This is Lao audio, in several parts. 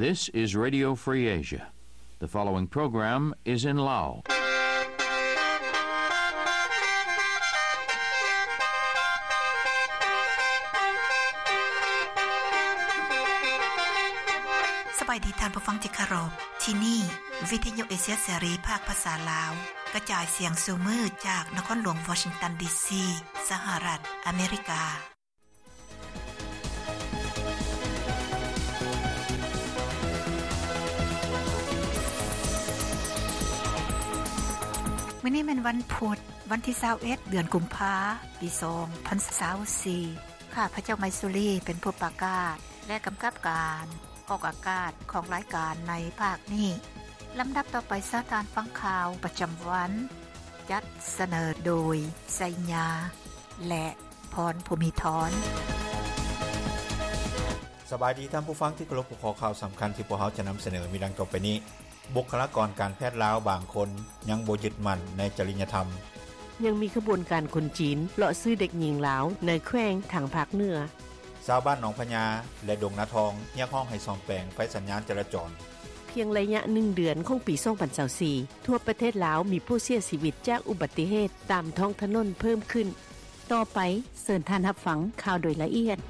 This is Radio Free Asia. The following program is in Lao. ສະບາຍດີທ່ານຜູ້ຟັງທີ່ເຄົາລົບ. ທີ່ນີ້ ວິທະຍຸເອເຊຍເສລີ ພາກພາສາລາວ ກະຈາຍສຽງສູ່ມື້ຈາກນະຄອນຫຼວງວໍຊິງຕັນ ດີຊີ ສະຫະລັດອາເມລິກາ. ມື້ນີ້ແມ່ນວັນພຸດ, ວັນທີຊາວເອັດ ເດືອນກຸມພາ ປີສອງພັນຊາວສີ່. ຂ້າພະເຈົ້າ ໄມຊູລີ ເປັນຜູ້ປະກາດ ແລະ ກຳກັບການອອກອາກາດຂອງລາຍການໃນພາກນີ້. ລຳດັບຕໍ່ໄປ ເຊີນທ່ານຟັງຂ່າວປະຈຳວັນ, ຈັດສະເໜີໂດຍ ໄຊຍາ ແລະ ພອນ ພູມີທອນ. ສະບາຍດີທ່ານຜູ້ຟັງທີ່ເຄົາລົບ, ຫົວຂໍ້ຂ່າວສຳຄັນທີ່ພວກເຮົາຈະນຳສະເໜີມີດັ່ງຕໍ່ໄປນີ້. ບຸກຄະລາກອນການແພດລາວບາງຄົນຍັງບໍ່ຍຶດໝັ້ນໃນຈະລິຍະທຳ. ຍັງມີຂະບວນການຄົນຈີນເລາະຊື້ເດັກຍິງລາວໃນແຂວງທາງພາກເໜືອ. ຊາວບ້ານໜອງພະຍາ ແລະ ດົງນາທອງ ຮຽກຮ້ອງໃຫ້ສ້ອມແປງໄຟສັນຍານຈະລາຈອນ. ພຽງໄລຍະໜຶ່ງເດືອນຂອງປີສອງພັນຊາວສີ່ ທົ່ວປະເທດລາວມີຜູ້ເສຍຊີວິດຈາກອຸບັດຕິເຫດຕາມທ້ອງຖະໜົນເພີ່ມຂຶ້ນ. ຕໍ່ໄປ ເຊີນທ່ານຮັບຟັງຂ່າວໂດຍລະອຽດ.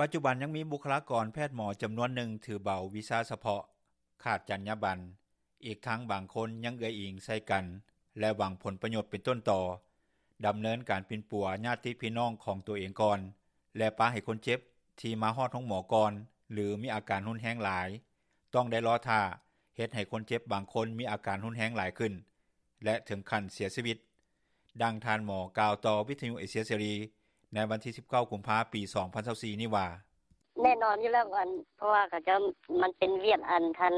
ປັດຈຸບັນຍັງມີບຸກຄະລາກອນແພດໝໍຈຳນວນໜຶ່ງຖືເບົາວິຊາສະເພາະ, ຂາດຈັນຍາບັນ, ອີກທັງບາງຄົນຍັງເອື້ອຍອີງໃສ່ກັນ ແລະ ຫວັງຜົນປະໂຫຍດເປັນຕົ້ນຕໍ, ດຳເນີນການປິ່ນປົວຍາດຕິພີ່ນ້ອງຂອງຕົວເອງກ່ອນ ແລະ ປະໃຫ້ຄົນເຈັບທີ່ມາຮອດໂຮງໝໍກ່ອນ ຫຼື ມີອາການຮຸນແຮງຫຼາຍ ຕ້ອງໄດ້ລໍຖ້າ, ເຮັດໃຫ້ຄົນເຈັບບາງຄົນມີອາການຮຸນແຮງຫຼາຍຂຶ້ນ ແລະ ເຖິງຂັ້ນເສຍຊີວິດ. ດັ່ງທ່ານໝໍກ່າວຕໍ່ວິທະຍຸເອເຊຍເສລີໃນວັນທີສິບເກົ້າ ກຸມພາ ປີສອງພັນຊາວສີ່ນີ້ວ່າ. ແນ່ນອນຢູ່ແລ້ວ ອັນ ເພາະວ່າເຂົາເຈົ້າ ມັນເປັນວຽກ ອັນ ທັນ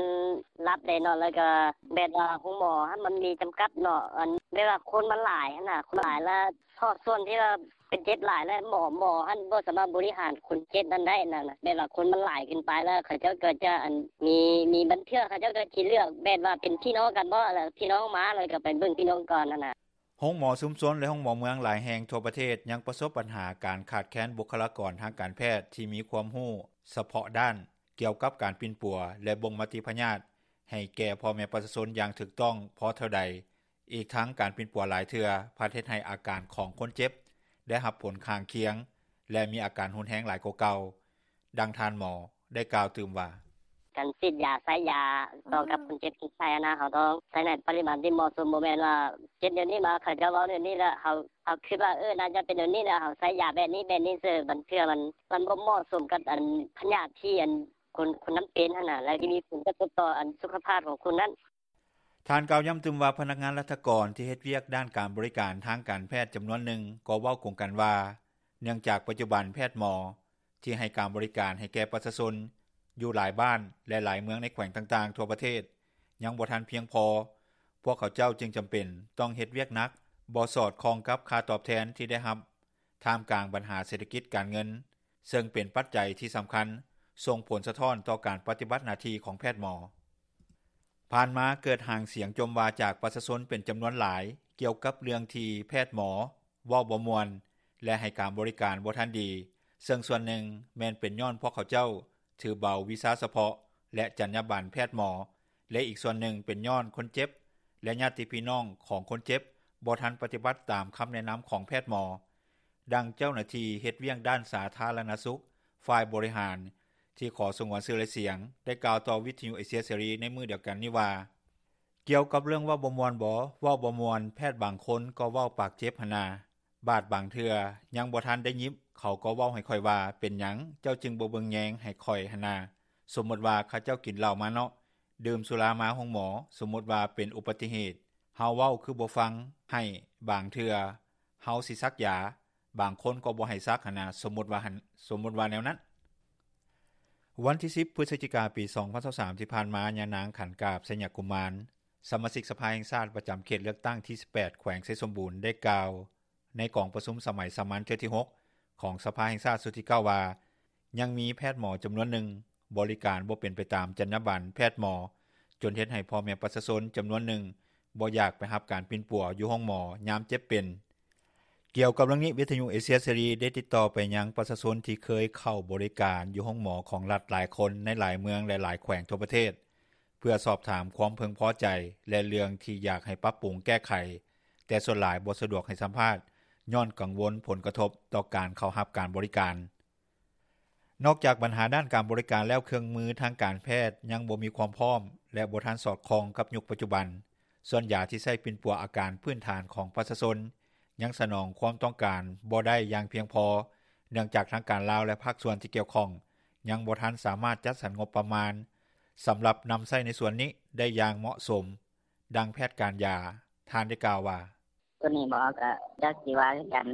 ລັບເດ້ເນາະ ແລ້ວກໍແບບວ່າໂຮງໝໍຫັ້ນມັນມີຈຳກັດເນາະ ອັນ ແບບວ່າຄົນມັນຫຼາຍຫັ້ນນະ ຄົນຫຼາຍ ແລ້ວພາກສ່ວນທີ່ວ່າ ເປັນເຈັບຫຼາຍ ແລະ ໝໍ ໝໍຫັ້ນບໍ່ສາມາດບໍລິຫານຄົນເຈັບນັ້ນໄດ້ນັ້ນນະ ແບບວ່າຄົນມັນຫຼາຍເກີນໄປ ແລ້ວເຂົາເຈົ້າກໍຈະ ອັນ ມີ ມີບາງເທື່ອເຂົາເຈົ້າກໍຊິເລືອກແບບວ່າເປັນພີ່ນ້ອງກັນບໍ ແລ້ວພີ່ນ້ອງມາ ແລ້ວກໍໄປເບິ່ງພີ່ນ້ອງກ່ອນຫັ້ນນະ. ໂຮງໝໍຊຸມຊົນ ແລະ ໂຮງໝໍເມືອງຫຼາຍແຫ່ງທົ່ວປະເທດ ຍັງປະສົບບັນຫາການຂາດແຄນບຸກຄະລາກອນທາງການແພດທີ່ມີຄວາມຮູ້ສະເພາະດ້ານ ກ່ຽວກັບການປິ່ນປົວ ແລະ ບົ່ງມະຕິພະຍາດໃຫ້ແກ່ພໍ່ແມ່ປະຊາຊົນຢ່າງຖືກຕ້ອງພໍເທົ່າໃດ. ອີກທັງການປິ່ນປົວຫຼາຍເທື່ອພັດເຮັດໃຫ້ອາການຂອງຄົນເຈັບໄດ້ຮັບຜົນຂ້າງຄຽງ ແລະ ມີອາການຮຸນແຮງຫຼາຍກວ່າເກົ່າ. ດັ່ງທ່ານໝໍໄດ້ກ່າວຕື່ມວ່າ. ການສີດຢາ ໃຊ້ຢາຕໍ່ກັບຄົນເຈັບຄົນໄຂ້ຫັ້ນນະ ເຮົາຕ້ອງໃຊ້ໃນປະລິມານທີ່ເໝາະສົມ ບໍ່ແມ່ນວ່າເຈັບແນວນີ້ມາ ເຂົາເຈົ້າເວົ້າແນວນີ້ ແລ້ວເຮົາ ເຮົາຄິດວ່າ ເອີ ໜ້າຈະເປັນແນວນີ້ ແລ້ວເຮົາໃຊ້ຢາແບບນີ້ ແບບນີ້ເສີ ບາງເທື່ອມັນ ມັນບໍ່ເໝາະສົມກັບ ອັນ ພະຍາດທີ່ ອັນ ຄົນ ຄົນນັ້ນເປັນຫັ້ນນະ ແລ້ວທີ່ມີຜົນກະທົບຕໍ່ ອັນ ສຸຂະພາບຂອງຄົນນັ້ນ. ທ່ານກ່າວຢ້ຳຕື່ມວ່າ ພະນັກງານລັດຖະກອນທີ່ເຮັດວຽກດ້ານການບໍລິການທາງການແພດຈຳນວນໜຶ່ງກໍເວົ້າກົງກັນວ່າ ເນື່ອງຈາກປັດຈຸບັນແພດໝໍທີ່ໃຫ້ການບໍລິການໃຫ້ແກ່ປະຊາຊົນຢູ່ຫຼາຍບ້ານ ແລະ ຫຼາຍເມືອງໃນແຂວງຕ່າງໆທົ່ວປະເທດຍັງບໍ່ທັນພຽງພໍ, ພວກເຂົາເຈົ້າຈຶ່ງຈຳເປັນຕ້ອງເຮັດວຽກໜັກ, ບໍ່ສອດຄ່ອງກັບຄ່າຕອບແທນທີ່ໄດ້ຮັບ, ທ່າມກາງບັນຫາເສດຖະກິດການເງິນ ເຊິ່ງເປັນປັດໄຈທີ່ສຳຄັນສົ່ງຜົນສະທ້ອນຕໍ່ການປະຕິບັດໜ້າທີ່ຂອງແພດໝໍ. ຜ່ານມາເກີດຫາງສຽງຈົ່ມວ່າຈາກປະຊາຊົນເປັນຈຳນວນຫຼາຍ ກ່ຽວກັບເລື່ອງທີ່ແພດໝໍເວົ້າບໍ່ມ່ວນ ແລະ ໃຫ້ການບໍລິການບໍ່ທັນດີ, ເຊິ່ງສ່ວນໜຶ່ງແມ່ນເປັນຍ້ອນພວກເຂົາເຈົ້າຖືເບົາວິຊາສະເພາະ ແລະ ຈັນຍາບັນແພດໝໍ ແລະ ອີກສ່ວນໜຶ່ງເປັນຍ້ອນຄົນເຈັບ ແລະ ຍາດຕິພີ່ນ້ອງຂອງຄົນເຈັບບໍ່ທັນປະຕິບັດຕາມຄຳແນະນຳຂອງແພດໝໍ. ດັ່ງເຈົ້າໜ້າທີ່ເຮັດວຽກດ້ານສາທາລະນະສຸກຝ່າຍບໍລິຫານ ທີ່ຂໍສະຫງວນຊື່ ແລະ ສຽງ ໄດ້ກ່າວຕໍ່ວິທະຍຸເອເຊຍເສລີໃນມື້ດຽວກັນນີ້ວ່າ, ກ່ຽວກັບເລື່ອງເວົ້າບໍ່ມ່ວນບໍ? ເວົ້າບໍ່ມ່ວນ, ແພດບາງຄົນກໍເວົ້າປາກເຈັບຫັ້ນນາ. ບາດບາງເທື່ອຍັງບໍ່ທັນໄດ້ຍິບ ເຂົາກໍເວົ້າໃຫ້ຂ້ອຍວ່າ, ເປັນຫຍັງເຈົ້າຈຶ່ງບໍ່ເບິ່ງແຍງໃຫ້ຂ້ອຍຫັ້ນນາ? ສົມມຸດວ່າເຂົາເຈົ້າກິນເຫຼົ້າມາເນາະ, ດື່ມສຸລາມາໂຮງໝໍ, ສົມມຸດວ່າເປັນອຸບັດຕິເຫດ, ເຮົາເວົ້າຄືບໍ່ຟັງ, ໃຫ້ບາງເທື່ອເຮົາຊິສັກຢາ, ບາງຄົນກໍບໍ່ໃຫ້ສັກຫັ້ນນາ, ສົມມຸດວ່າຫັ້ນ, ສົມມຸດວ່າແນວນັ້ນ. ວັນທີສິບ ພຶສຈິກາ ປີສອງພັນຊາວສາມ ທີ່ຜ່ານມາ, ຍານາງ ຂັນກາບ ໄຊຍະກຸມານ, ສະມາຊິກສະພາແຫ່ງຊາດປະຈຳເຂດເລືອກຕັ້ງທີສິບແປດ ແຂວງໄຊສົມບູນ ໄດ້ກ່າວໃນກອງປະຊຸມສະໄໝສາມັນເທື່ອທີຫົກ ຂອງສະພາແຫ່ງຊາດຊຸດທີເກົ້າ ວ່າ, ຍັງມີແພດໝໍຈຳນວນໜຶ່ງບໍລິການບໍ່ເປັນໄປຕາມຈັນຍາບັນແພດໝໍ, ຈົນເຮັດໃຫ້ພໍ່ແມ່ປະຊາຊົນຈຳນວນໜຶ່ງບໍ່ຢາກໄປຮັບການປິ່ນປົວຢູ່ໂຮງໝໍຍາມເຈັບເປັນ. ກ່ຽວກັບເລື່ອງນີ້ ວິທຍຸເອເຊຍເສລີ ໄດ້ຕິດຕໍ່ໄປຍັງປະຊາຊົນທີ່ເຄີຍເຂົ້າບໍລິການຢູ່ໂຮງໝໍຂອງລັດຫຼາຍຄົນໃນຫຼາຍເມືອງ ແລະຫຼາຍແຂວງທົ່ວປະເທດ ເພື່ອສອບຖາມຄວາມເພິ່ງພໍໃຈ ແລະເລື່ອງທີ່ຢາກໃຫ້ປັບປຸງແກ້ໄຂ ແຕ່ສ່ວນຫຼາຍບໍ່ສະດວກໃຫ້ສຳພາດ ຍ້ອນກັງວົນຜົນກະທົບຕໍ່ການເຂົ້າຮັບການບໍລິການ. ນອກຈາກບັນຫາດ້ານການບໍລິການແລ້ວ ເຄື່ອງມືທາງການແພດຍັງບໍ່ມີຄວາມພ້ອມ ແລະບໍ່ທັນສອດຄ່ອງກັບຍຸກປັດຈຸບັນ. ສ່ວນຢາທີ່ໃຊ້ປິ່ນປົວອາການພື້ນຖານຂອງປະຊາຊົນ ຍັງສະໜອງຄວາມຕ້ອງການບໍ່ໄດ້ຢ່າງພຽງພໍ ເນື່ອງຈາກທາງການລາວ ແລະພາກສ່ວນທີ່ກ່ຽວຂ້ອງ ຍັງບໍ່ທັນສາມາດຈັດສັນງົບປະມານ ສຳລັບນຳໃຊ້ໃນສ່ວນນີ້ໄດ້ຢ່າງເໝາະສົມ. ດັ່ງແພດການຢາ ທ່ານໄດ້ກ່າວວ່າ: ໂຕນີ້ບໍ່ ກໍຈັກຊິວ່າຄືກັນ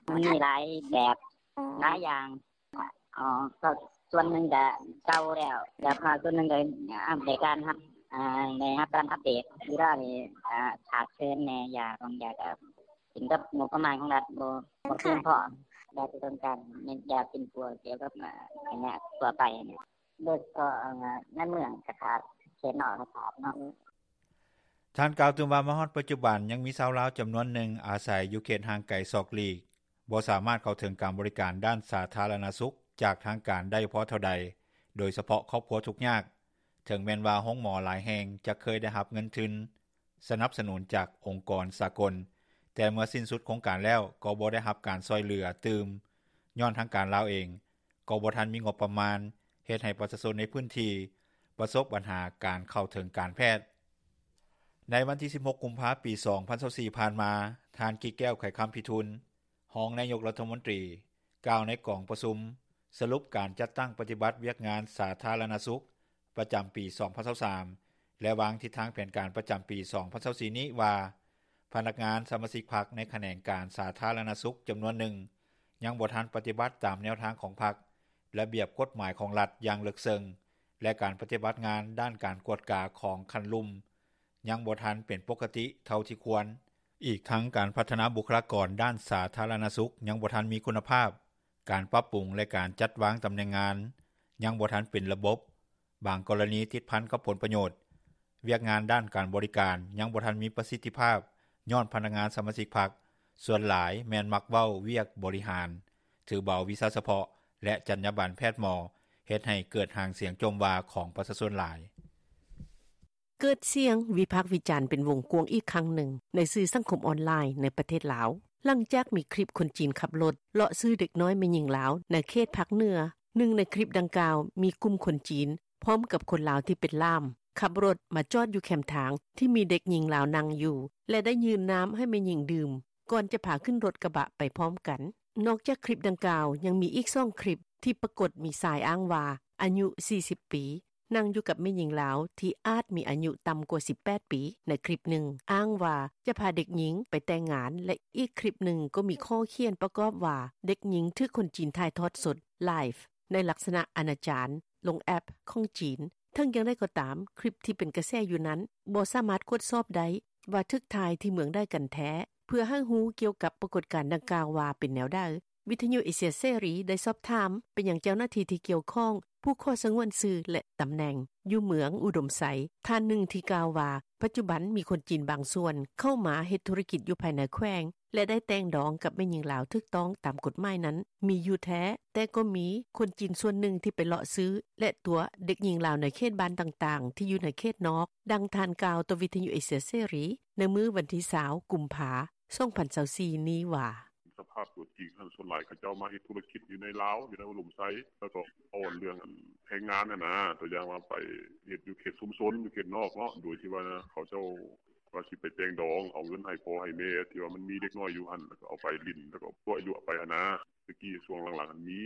ມັນມີຫຼາຍແບບຫຼາຍຢ່າງ. ອໍ ກໍສ່ວນໜຶ່ງກໍເກົ່າແລ້ວ ແລ້ວກໍສ່ວນໜຶ່ງກໍໄດ້ຮັບ ໄດ້ຮັບການອັບເດດ. ເວລານີ້ຂາດເຂີນແດ່ ຢາບາງຢ່າງກໍຂຶ້ນກັບງົບປະມານຂອງລັດບໍ່ ບໍ່ພຽງພໍ ຢາທີ່ຕ້ອງການແມ່ນຢາປິ່ນປົວກ່ຽວກັບໄຂ້ເລືອດທົ່ວໄປ ໂດຍສະເພາະໃນເມືອງກໍຂາດ ເຂດນອກກໍຂາດເນາະ. ທ່ານກ່າວຕື່ມວ່າ ມາຮອດປັດຈຸບັນ ຍັງມີຊາວລາວຈຳນວນໜຶ່ງອາໄສຢູ່ເຂດຫ່າງໄກສອກຫຼີກ ບໍ່ສາມາດເຂົ້າເຖິງການບໍລິການດ້ານສາທາລະນະສຸກຈາກທາງການໄດ້ພໍເທົ່າໃດ ໂດຍສະເພາະຄອບຄົວທຸກຍາກ. ເຖິງແມ່ນວ່າໂຮງໝໍຫຼາຍແຫ່ງຈະເຄີຍໄດ້ຮັບເງິນທຶນສະໜັບສະໜູນຈາກອົງກອນສາກົນ ແຕ່ເມື່ອສິ້ນສຸດໂຄງການແລ້ວ ກໍບໍ່ໄດ້ຮັບການຊ່ອຍເຫຼືອຕື່ມ ຍ້ອນທາງການລາວເອງ ກໍບໍ່ທັນມີງົບປະມານ ເຮັດໃຫ້ປະຊາຊົນໃນພື້ນທີ່ປະສົບບັນຫາການເຂົ້າເຖິງການແພດ. ໃນວັນທີສິບຫົກ ກຸມພາ ປີສອງພັນຊາວສີ່ ຜ່ານມາ ທ່ານ ກິແກ້ວ ໄຂຄຳພິທູນ ຮອງນາຍົກລັດຖະມົນຕີ ກ່າວໃນກອງປະຊຸມສະຫຼຸບການຈັດຕັ້ງປະຕິບັດວຽກງານສາທາລະນະສຸກ ປະຈຳປີສອງພັນຊາວສາມ ແລະວາງທິດທາງແຜນການປະຈຳປີສອງພັນຊາວສີ່ນີ້ວ່າ ພະນັກງານສະມາຊິກພັກໃນຂະແໜງການສາທາລະນະສຸກຈຳນວນໜຶ່ງ ຍັງບໍ່ທັນປະຕິບັດຕາມແນວທາງຂອງພັກ, ລະບຽບກົດໝາຍຂອງລັດຢ່າງເລິກເຊິ່ງ ແລະການປະຕິບັດງານດ້ານການກວດກາຂອງຂັ້ນລຸ່ມ ຍັງບໍ່ທັນເປັນປົກກະຕິເທົ່າທີ່ຄວນ. ອີກທັງການພັດທະນາບຸກຄະລາກອນດ້ານສາທາລະນະສຸກຍັງບໍ່ທັນມີຄຸນນະພາບ, ການປັບປຸງ ແລະການຈັດວາງຕຳແໜ່ງງານຍັງບໍ່ທັນເປັນລະບົບ, ບາງກໍລະນີຕິດພັນກັບຜົນປະໂຫຍດ, ວຽກງານດ້ານການບໍລິການຍັງບໍ່ທັນມີປະສິດທິພາບ ຍ້ອນພະນັກງານສະມາຊິກພັກສ່ວນຫຼາຍແມ່ນມັກເວົ້າວຽກບໍລິຫານ, ຖືເບົາວິຊາສະເພາະ ແລະ ຈັນຍາບັນແພດໝໍ ເຮັດໃຫ້ເກີດຫາງສຽງຈົ່ມວ່າຂອງປະຊາຊົນຫຼາຍ. ເກີດສຽງວິພາກວິຈານເປັນວົງກວ້າງອີກຄັ້ງໜຶ່ງ ໃນສື່ສັງຄົມອອນລາຍໃນປະເທດລາວ ຫຼັງຈາກມີຄລິບຄົນຈີນຂັບລົດເລາະຊື້ເດັກນ້ອຍແມ່ຍິງລາວໃນເຂດພາກເໜືອ. ໜຶ່ງໃນຄລິບດັ່ງກ່າວ ມີກຸ່ມຄົນຈີນພ້ອມກັບຄົນລາວທີ່ເປັນລ່າມ ຂັບລົດມາຈອດຢູ່ແຄມທາງທີ່ມີເດັກຍິງລາວນັ່ງຢູ່ ແລະໄດ້ຍື່ນນ້ຳໃຫ້ແມ່ຍິງດື່ມ ກ່ອນຈະພາຂຶ້ນລົດກະບະໄປພ້ອມກັນ. ນອກຈາກຄລິບດັ່ງກ່າວ ຍັງມີອີກສອງຄລິບທີ່ປາກົດມີຊາຍອ້າງວ່າອາຍຸສີ່ສິບປີ ນັ່ງຢູ່ກັບແມ່ຍິງລາວທີ່ອາດມີອາຍຸຕ່ຳກວ່າສິບແປດປີ. ໃນຄລິບໜຶ່ງອ້າງວ່າຈະພາເດັກຍິງໄປແຕ່ງງານ ແລະອີກຄລິບໜຶ່ງກໍມີຂໍ້ຂຽນປະກອບວ່າເດັກຍິງຖືກຄົນຈີນຖ່າຍທອດສົດ live ໃນລັກສະນະອະນາຈານ ລົງແອັບຂອງຈີນ. ເຖິງຢ່າງໃດກໍຕາມ, ຄລິບທີ່ເປັນກະແສຢູ່ນັ້ນບໍ່ສາມາດກວດສອບໄດ້ວ່າຖືກຖ່າຍທີ່ເມືອງໃດກັນແທ້. ເພື່ອໃຫ້ຮູ້ກ່ຽວກັບປາກົດການດັ່ງກ່າວວ່າເປັນແນວໃດ, ວິທະຍຸເອເຊຍເສລີໄດ້ສອບຖາມໄປຍັງເຈົ້າໜ້າທີ່ທີ່ກ່ຽວຂ້ອງ ຜູ້ຂໍສະຫງວນຊື່ ແລະ ຕຳແໜ່ງ ຢູ່ເມືອງອຸດົມໄຊ ທ່ານໜຶ່ງທີ່ກ່າວວ່າ ປັດຈຸບັນມີຄົນຈີນບາງສ່ວນເຂົ້າມາເຮັດທຸລະກິດຢູ່ພາຍໃນແຂວງ ແລະ ໄດ້ແຕ່ງດອງກັບແມ່ຍິງລາວຖືກຕ້ອງຕາມກົດໝາຍນັ້ນມີຢູ່ແທ້, ແຕ່ກໍມີຄົນຈີນສ່ວນໜຶ່ງທີ່ໄປເລາະຊື້ ແລະ ຕົວະເດັກຍິງລາວໃນເຂດບ້ານຕ່າງໆ ທີ່ຢູ່ໃນເຂດນອກ. ດັ່ງທ່ານກ່າວຕໍ່ວິທະຍຸເອເຊຍເສລີໃນມື້ວັນທີຊາວ ກຸມພາ ສອງພັນຊາວສີ່ນີ້ວ່າ: ສະພາບຕົວຈິງຫັ້ນ ສ່ວນຫຼາຍເຂົາເຈົ້າມາເຮັດທຸລະກິດຢູ່ໃນລາວ ຢູ່ໃນອຸດົມໄຊ ແລ້ວກໍເວົ້າເລື່ອງແຮງງານຫັ້ນນະ, ຕົວຢ່າງວ່າໄປເຮັດຢູ່ເຂດຊຸມຊົນ ຢູ່ເຂດນອກເນາະ, ໂດຍທີ່ວ່າເຂົາເຈົ້າວ່າຊິໄປແຕ່ງດອງ ເອົາເງິນໃຫ້ພໍ່ໃຫ້ແມ່ ທີ່ວ່າມັນມີເດັກນ້ອຍຢູ່ຫັ້ນ ແລ້ວກໍເອົາໄປຫຼິ້ນ ແລ້ວກໍຕົວະຍົວະໄປຫັ້ນນະ. ແຕ່ກີ້ຊ່ວງຫຼັງໆຫັ້ນມີ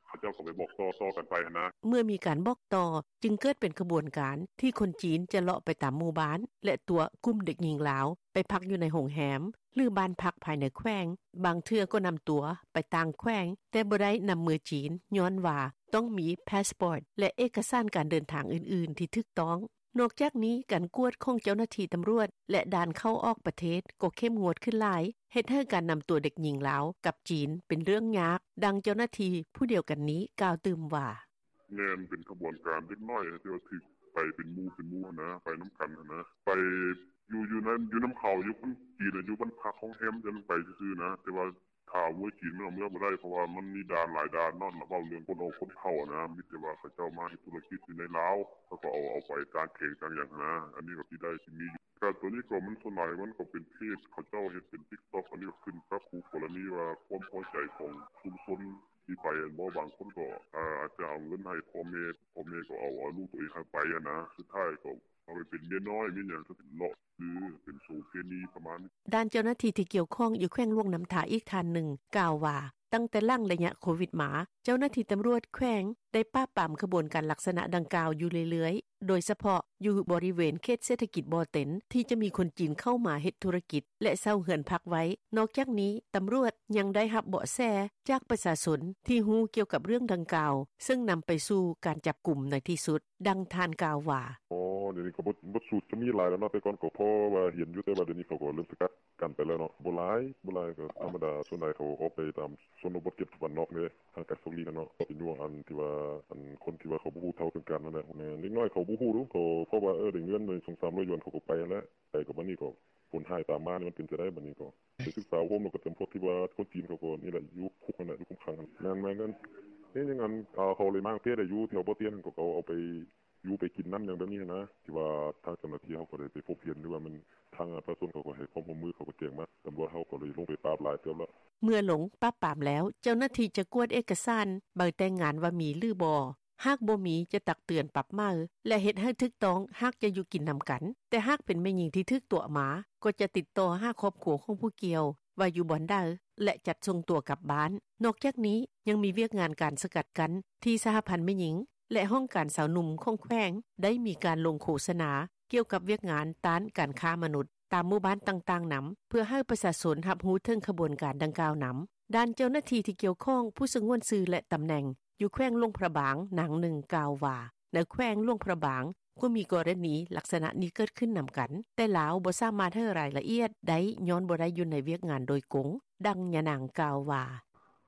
ເຂົາເຈົ້າກໍໄປບອກຕໍ່ໆກັນໄປຫັ້ນນະ. ເມື່ອມີການບອກຕໍ່ ຈຶ່ງເກີດເປັນຂະບວນການທີ່ຄົນຈີນຈະເລາະໄປຕາມໝູ່ບ້ານ ແລະ ຕົວະກຸ່ມເດັກຍິງລາວໄປພັກຢູ່ໃນໂຮງແຮມ ຫຼື ບ້ານພັກພາຍໃນແຂວງ. ບາງເທື່ອກໍນຳຕົວໄປຕ່າງແຂວງ ແຕ່ບໍ່ໄດ້ນຳເມືອຈີນ ຍ້ອນວ່າຕ້ອງມີພາສປອດ ແລະ ເອກະສານການເດີນທາງອື່ນໆທີ່ຖືກຕ້ອງ. ນອກຈາກນີ້, ການກວດຂອງເຈົ້າໜ້າທີ່ຕຳຫຼວດ ແລະ ດ່ານເຂົ້າອອກປະເທດກໍເຂັ້ມງວດຂຶ້ນຫຼາຍ, ເຮັດໃຫ້ການນຳຕົວເດັກຍິງລາວກັບຈີນເປັນເລື່ອງຍາກ. ດັ່ງເຈົ້າໜ້າທີ່ຜູ້ດຽວກັນນີ້ກ່າວຕື່ມວ່າ: ແມ່ນເປັນຂະບວນການເດັກນ້ອຍທີ່ວ່າຖືກໄປເປັນໝູ່ເປັນໝູ່ຫັ້ນນະ, ໄປນຳກັນຫັ້ນນະ, ໄປ ຢູ່ ຢູ່ນຳ ຢູ່ນຳເຂົາ ຢູ່ຄົນຈີນຢູ່ບ້ານພັກໂຮງແຮມ ຈັ່ງໄປຊື່ໆນະ ແຕ່ວ່າຖ້າເມືອຈີນມັນເອົາເມືອບໍ່ໄດ້ ເພາະວ່າມັນມີດ່ານຫຼາຍດ່ານເນາະ ເວົ້າເລື່ອງຄົນອອກຄົນເຂົ້າຫັ້ນນະ ມີແຕ່ວ່າເຂົາເຈົ້າມາເຮັດທຸລະກິດຢູ່ໃນລາວ ເຂົາກໍເອົາ ເອົາໄປຕ່າງແຂວງຕ່າງຫຍັງຫັ້ນນະ ອັນນີ້ກໍຊິໄດ້ ຊິມີຢູ່ ກະໂຕນີ້ກໍມັນສ່ວນຫຼາຍມັນກໍເປັນເພຈ ເຂົາເຈົ້າເຮັດເປັນຕິກຕັອກ ອັນນີ້ກໍຂຶ້ນກັບຄູ່ກໍລະນີວ່າຄວາມພໍໃຈຂອງຊຸມຊົນທີ່ໄປຫັ້ນບໍ ບາງຄົນກໍອາດຈະເອົາເງິນໃຫ້ພໍ່ແມ່ ພໍ່ແມ່ກໍເອົາ ເອົາລູກໂຕເອງຫັ້ນໄປຫັ້ນນະ ສຸດທ້າຍກໍເອົາໄປເປັນເມຍນ້ອຍເມຍຫຍັງ ກໍເປັນເລາະ ຫຼືເປັນໂສເພນີປະມານນີ້. ດ້ານເຈົ້າໜ້າທີ່ທີ່ກ່ຽວຂ້ອງຢູ່ແຂວງຫຼວງນ້ຳທາອີກທ່ານໜຶ່ງກ່າວວ່າ ຕັ້ງແຕ່ຫຼັງໄລຍະໂຄວິດມາ ເຈົ້າໜ້າທີ່ຕຳຫຼວດແຂວງໄດ້ປາບປາມຂະບວນການລັກສະນະດັ່ງກ່າວຢູ່ເລື້ອຍໆ ໂດຍສະເພາະຢູ່ບໍລິເວນເຂດເສດຖະກິດບໍ່ເຕັນ ທີ່ຈະມີຄົນຈີນເຂົ້າມາເຮັດທຸລະກິດ ແລະເຊົ່າເຮືອນພັກໄວ້. ນອກຈາກນີ້ ຕຳຫຼວດຍັງໄດ້ຮັບເບາະແສຈາກປະຊາຊົນທີ່ຮູ້ກ່ຽວກັບເລື່ອງດັ່ງກ່າວ ເຊິ່ງນຳໄປສູ່ການຈັບກຸມໃນທີ່ສຸດ. ດັ່ງທ່ານກ່າວວ່າ: ອໍ ດຽວນີ້ກໍບົດສູດຈະມີຫຼາຍແລ້ວເນາະ ແຕ່ກ່ອນກໍພໍວ່າເຫັນຢູ່ ແຕ່ວ່າດຽວນີ້ເຂົາກໍເລີ່ມສະກັດ ກັນໄປແລ້ວເນາະ ບໍ່ຫຼາຍ ບໍ່ຫຼາຍ ກໍທຳມະດາ ສ່ວນຫຼາຍເຂົາອອກໄປຕາມຊົນນະບົດ ເຂດບ້ານນອກເດ້ ຫ່າງໄກສອກຫຼີກຫັ້ນເນາະ ກໍເປັນຢູ່ອັນທີ່ວ່າ ອັນຄົນທີ່ວ່າເຂົາບໍ່ຮູ້ເທົ່າເຖິງການນັ້ນແຫຼະ ເດັກນ້ອຍເຂົາບໍ່ຮູ້ດູ ເຂົາ ເພາະວ່າ ເອີ ໄດ້ເງິນ ສອງສາມຮ້ອຍຢວນ ເຂົາກໍໄປຫັ້ນແຫຼະ ໄປກໍບາດນີ້ກໍຜົນຮ້າຍຕາມມາ ມັນເປັນຈັ່ງໃດບາດນີ້ ກໍໄປສຶກສາໂຮມ ແລ້ວກໍຈຳພວກທີ່ວ່າຄົນຈີນເຂົາກໍນີ້ແຫຼະ ຢູ່ຄຸກຫັ້ນແຫຼະ ຢູ່ຄຸມຂັງຫັ້ນ ແມ່ນໆ ເຮັດຫຍັງອັນ ເຂົາເລີຍມາຕັ້ງແຕ່ໄດ້ຢູ່ແຖວບໍ່ຕຽນ ເຂົາກໍເອົາໄປ ຢູ່ໄປກິນນຳ ຫຍັງແບບນີ້ຫັ້ນນະ ທີ່ວ່າທາງເຈົ້າໜ້າທີ່ເຮົາກໍໄດ້ໄປພົບເຫັນ ຫຼືວ່າແມ່ນທາງປະຊາຊົນເຂົາກໍໃຫ້ຄວາມຮ່ວມມື ເຂົາກໍແຈ້ງມາ ຕຳຫຼວດເຮົາກໍເລີຍລົງໄປປາບຫຼາຍເຕີບແລ້ວ. ເມື່ອລົງປາບປາມແລ້ວ ເຈົ້າໜ້າທີ່ຈະກວດເອກະສານໃບແຕ່ງງານວ່າມີ ຫຼືບໍ່ ຫາກບໍ່ມີຈະຕັກເຕືອນປັບໃໝ ແລະເຮັດໃຫ້ຖືກຕ້ອງ ຫາກຈະຢູ່ກິນນຳກັນ ແຕ່ຫາກເປັນແມ່ຍິງທີ່ຖືກຕົວະມາ ກໍຈະຕິດຕໍ່ຫາຄອບຄົວຂອງຜູ້ກ່ຽວວ່າຢູ່ບ່ອນໃດ ແລະຈັດສົ່ງຕົວກັບບ້ານ. ນອກຈາກນີ້ ຍັງມີວຽກງານການສະກັດກັ້ນ ທີ່ສະຫະພັນແມ່ຍິງ ແລະຫ້ອງການຊາວໜຸ່ມຂອງແຂວງ ໄດ້ມີການລົງໂຄສະນາກ່ຽວກັບວຽກງານຕ້ານການຄ້າມະນຸດ ຕາມໝູ່ບ້ານຕ່າງໆນຳ ເພື່ອໃຫ້ປະຊາຊົນຮັບຮູ້ເຖິງຂະບວນການດັ່ງກ່າວນຳ. ດ້ານເຈົ້າໜ້າທີ່ທີ່ກ່ຽວຂ້ອງ ຜູ້ສະຫງວນຊື່ ແລະຕຳແໜ່ງ ຢູ່ແຂວງຫຼວງພະບາງ ນາງໜຶ່ງກ່າວວ່າ ໃນແຂວງຫຼວງພະບາງ ກໍມີກໍລະນີລັກສະນະນີ້ເກີດຂຶ້ນນຳກັນ ແຕ່ລາວບໍ່ສາມາດໃຫ້ລາຍລະອຽດໄດ້ ຍ້ອນບໍ່ໄດ້ຢູ່ໃນວຽກງານໂດຍກົງ. ດັ່ງຍານາງກ່າວວ່າ: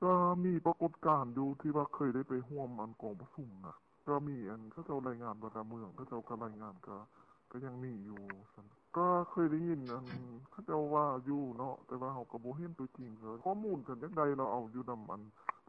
ກໍມີປາກົດການຢູ່ ທີ່ວ່າເຄີຍໄດ້ໄປຮ່ວມອັນກອງປະຊຸມນະ ກໍມີອັນເຂົາເຈົ້າລາຍງານວ່າ ຕາມເມືອງເຂົາເຈົ້າກໍລາຍງານ ກໍ ກໍຍັງມີຢູ່ຊັ້ນ ກໍເຄີຍໄດ້ຍິນອັນເຂົາເຈົ້າວ່າຢູ່ເນາະ ແຕ່ວ່າເຮົາກໍບໍ່ເຫັນຕົວຈິງ ຂໍ້ມູນຄັນຢາກໄດ້ລະເອົາຢູ່ນຳອັ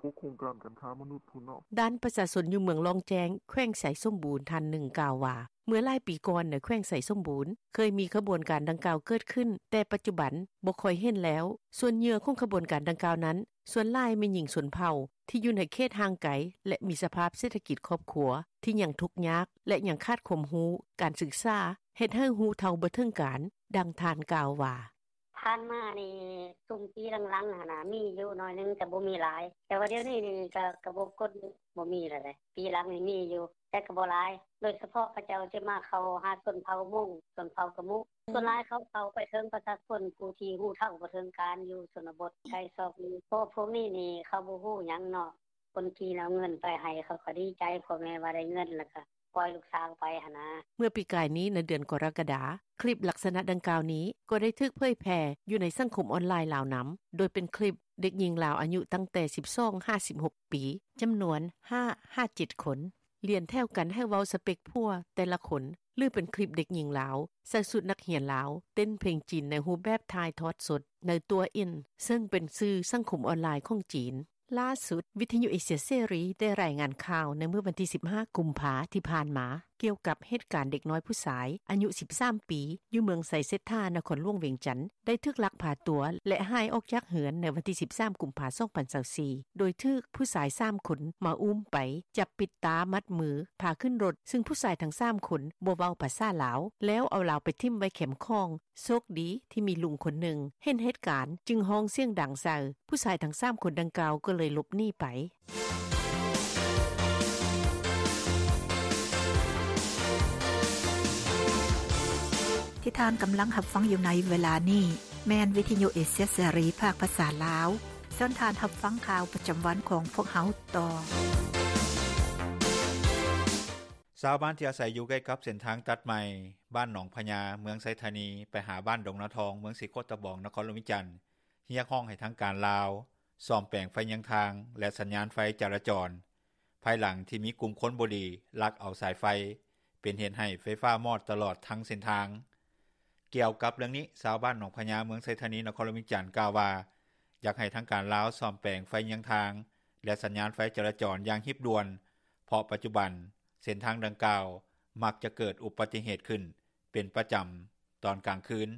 ນພວກໂຄງການການຄ້າມະນຸດພຸ້ນເນາະ. ດ້ານປະຊາຊົນຢູ່ເມືອງລ້ອງແຈ້ງ ແຂວງໄຊສົມບູນ ທ່ານໜຶ່ງກ່າວວ່າ ເມື່ອຫຼາຍປີກ່ອນໃນແຂວງໄຊສົມບູນ ເຄີຍມີຂະບວນການດັ່ງກ່າວເກີດຂຶ້ນ ແຕ່ປັດຈຸບັນບໍ່ຄ່ອຍເຫັນແລ້ວ. ສ່ວນເຫຍື່ອຂອງຂະບວນການດັ່ງກ່າວນັ້ນ ສ່ວນຫຼາຍແມ່ນຍິງຊົນເຜົ່າ ທີ່ຢູ່ໃນເຂດຫ່າງໄກ ແລະມີສະພາບເສດຖະກິດຄອບຄົວ ທີ່ຍັງທຸກຍາກ ແລະຍັງຂາດຄວາມຮູ້ ການສຶກສາ ເຮັດໃຫ້ຮູ້ເທົ່າບໍ່ເຖິງການ. ດັ່ງທ່ານກ່າວວ່າ: ຜ່ານມານີ້ຊຸມປີຫຼັງໆຫັ້ນນະ ມີຢູ່ໜ້ອຍໜຶ່ງ ແຕ່ບໍ່ມີຫຼາຍ ແຕ່ວ່າດຽວນີ້ນີ້ ກໍ ກໍບໍ່ກົນ ບໍ່ມີແລ້ວເດ້ ປີຫຼັງນີ້ມີຢູ່ ແຕ່ກໍບໍ່ຫຼາຍ ໂດຍສະເພາະເຂົາເຈົ້າຈະມາເຂົ້າຫາຊົນເຜົ່າມົ້ງ ຊົນເຜົ່າກະມຸ ສ່ວນຫຼາຍເຂົາເຂົ້າໄປເຖິງປະຊາຊົນຜູ້ທີ່ຮູ້ເທົ່າບໍ່ເຖິງການຢູ່ຊົນນະບົດໄກຊອກຫຼີກ ເພາະພວກນີ້ນີ້ເຂົາບໍ່ຮູ້ຫຍັງເນາະ ຄົນຈີນເອົາເງິນໄປໃຫ້ ເຂົາກໍດີໃຈ ພໍ່ແມ່ວ່າໄດ້ເງິນ ແລ້ວກໍປ່ອຍລູກສາວໄປຫັ້ນນະ. ເມື່ອປີກາຍນີ້ໃນເດືອນກໍລະກະດາ ຄລິບລັກສະນະດັ່ງກ່າວນີ້ ກໍໄດ້ຖືກເຜີຍແຜ່ຢູ່ໃນສັງຄົມອອນລາຍລາວນຳ ໂດຍເປັນຄລິບເດັກຍິງລາວອາຍຸຕັ້ງແຕ່ສິບສອງຫາສິບຫົກປີ ຈຳນວນຫ້າຫາເຈັດຄົນ ລຽນແຖວກັນໃຫ້ເວົ້າສະເປັກຜົວແຕ່ລະຄົນ ຫຼືເປັນຄລິບເດັກຍິງລາວໃສ່ຊຸດນັກຮຽນລາວ ເຕັ້ນເພງຈີນໃນຮູບແບບຖ່າຍທອດສົດໃນຕົວອິນ ເຊິ່ງເປັນສື່ສັງຄົມອອນລາຍຂອງຈີນ. ລ່າສຸດ ວິທະຍຸເອເຊຍເສລີໄດ້ລາຍງານຂ່າວໃນມື້ວັນທີສິບຫ້າ ກຸມພາທີ່ຜ່ານມາ ກ່ຽວກັບເຫດການເດັກນ້ອຍຜູ້ຊາຍອາຍຸສິບສາມປີ ຢູ່ເມືອງໄຊເສດຖາ ນະຄອນຫຼວງວຽງຈັນ ໄດ້ຖືກລັກພາຕົວ ແລະຫາຍອອກຈາກເຮືອນໃນວັນທີສິບສາມ ກຸມພາ ສອງພັນຊາວສີ່ ໂດຍຖືກຜູ້ຊາຍສາມຄົນມາອຸ້ມໄປ ຈັບປິດຕາມັດມື ພາຂຶ້ນລົດ ຊຶ່ງຜູ້ຊາຍທັງສາມຄົນບໍ່ເວົ້າພາສາລາວ ແລ້ວເອົາລາວໄປຖິ້ມໄວ້ແຄມຂອງ. ໂຊກດີທີ່ມີລຸງຄົນໜຶ່ງເຫັນເຫດການ ຈຶ່ງຮ້ອງສຽງດັງໃສ່ ຜູ້ຊາຍທັງສາມຄົນດັ່ງກ່າວກໍເລີຍຫຼົບໜີໄປ. ທີ່ທ່ານກຳລັງຮັບຟັງຢູ່ໃນເວລານີ້ ແມ່ນວິທະຍຸເອເຊຍເສລີ ພາກພາສາລາວ. ເຊີນທ່ານຮັບຟັງຂ່າວປະຈຳວັນຂອງພວກເຮົາຕໍ່. ຊາວບ້ານທີ່ອາໄສຢູ່ໃກ້ກັບເສັ້ນທາງຕັດໃໝ່ ບ້ານໜອງພະຍາ ເມືອງໄຊທານີ ໄປຫາບ້ານດົງນາທອງ ເມືອງສີໂຄດຕະບອງ ນະຄອນຫຼວງວຽງຈັນ ຮຽກຮ້ອງໃຫ້ທາງການລາວ ສ້ອມແປງໄຟຍາງທາງ ແລະ ສັນຍານໄຟຈະລາຈອນ ພາຍຫຼັງທີ່ມີກຸ່ມຄົນບໍ່ດີລັກເອົາສາຍໄຟ ເປັນເຫດໃຫ້ໄຟຟ້າມອດຕະຫຼອດທັງເສັ້ນທາງ. ກ່ຽວກັບເລື່ອງນີ້ ຊາວບ້ານໜອງພະຍາ ເມືອງໄຊທານີ ນະຄອນຫຼວງວຽງຈັນ ກ່າວວ່າ ຢາກໃຫ້ທາງການລາວສ້ອມແປງໄຟເຍືອງທາງ ແລະ ສັນຍານໄຟຈະລາຈອນຢ່າງຮີບດ່ວນ ເພາະປັດຈຸບັນເສັ້ນທາງດັ່ງກ່າວ ມັກຈະເກີດອຸບັດຕິເຫດຂຶ້ນເປັນປະຈຳຕອນກາງຄືນ.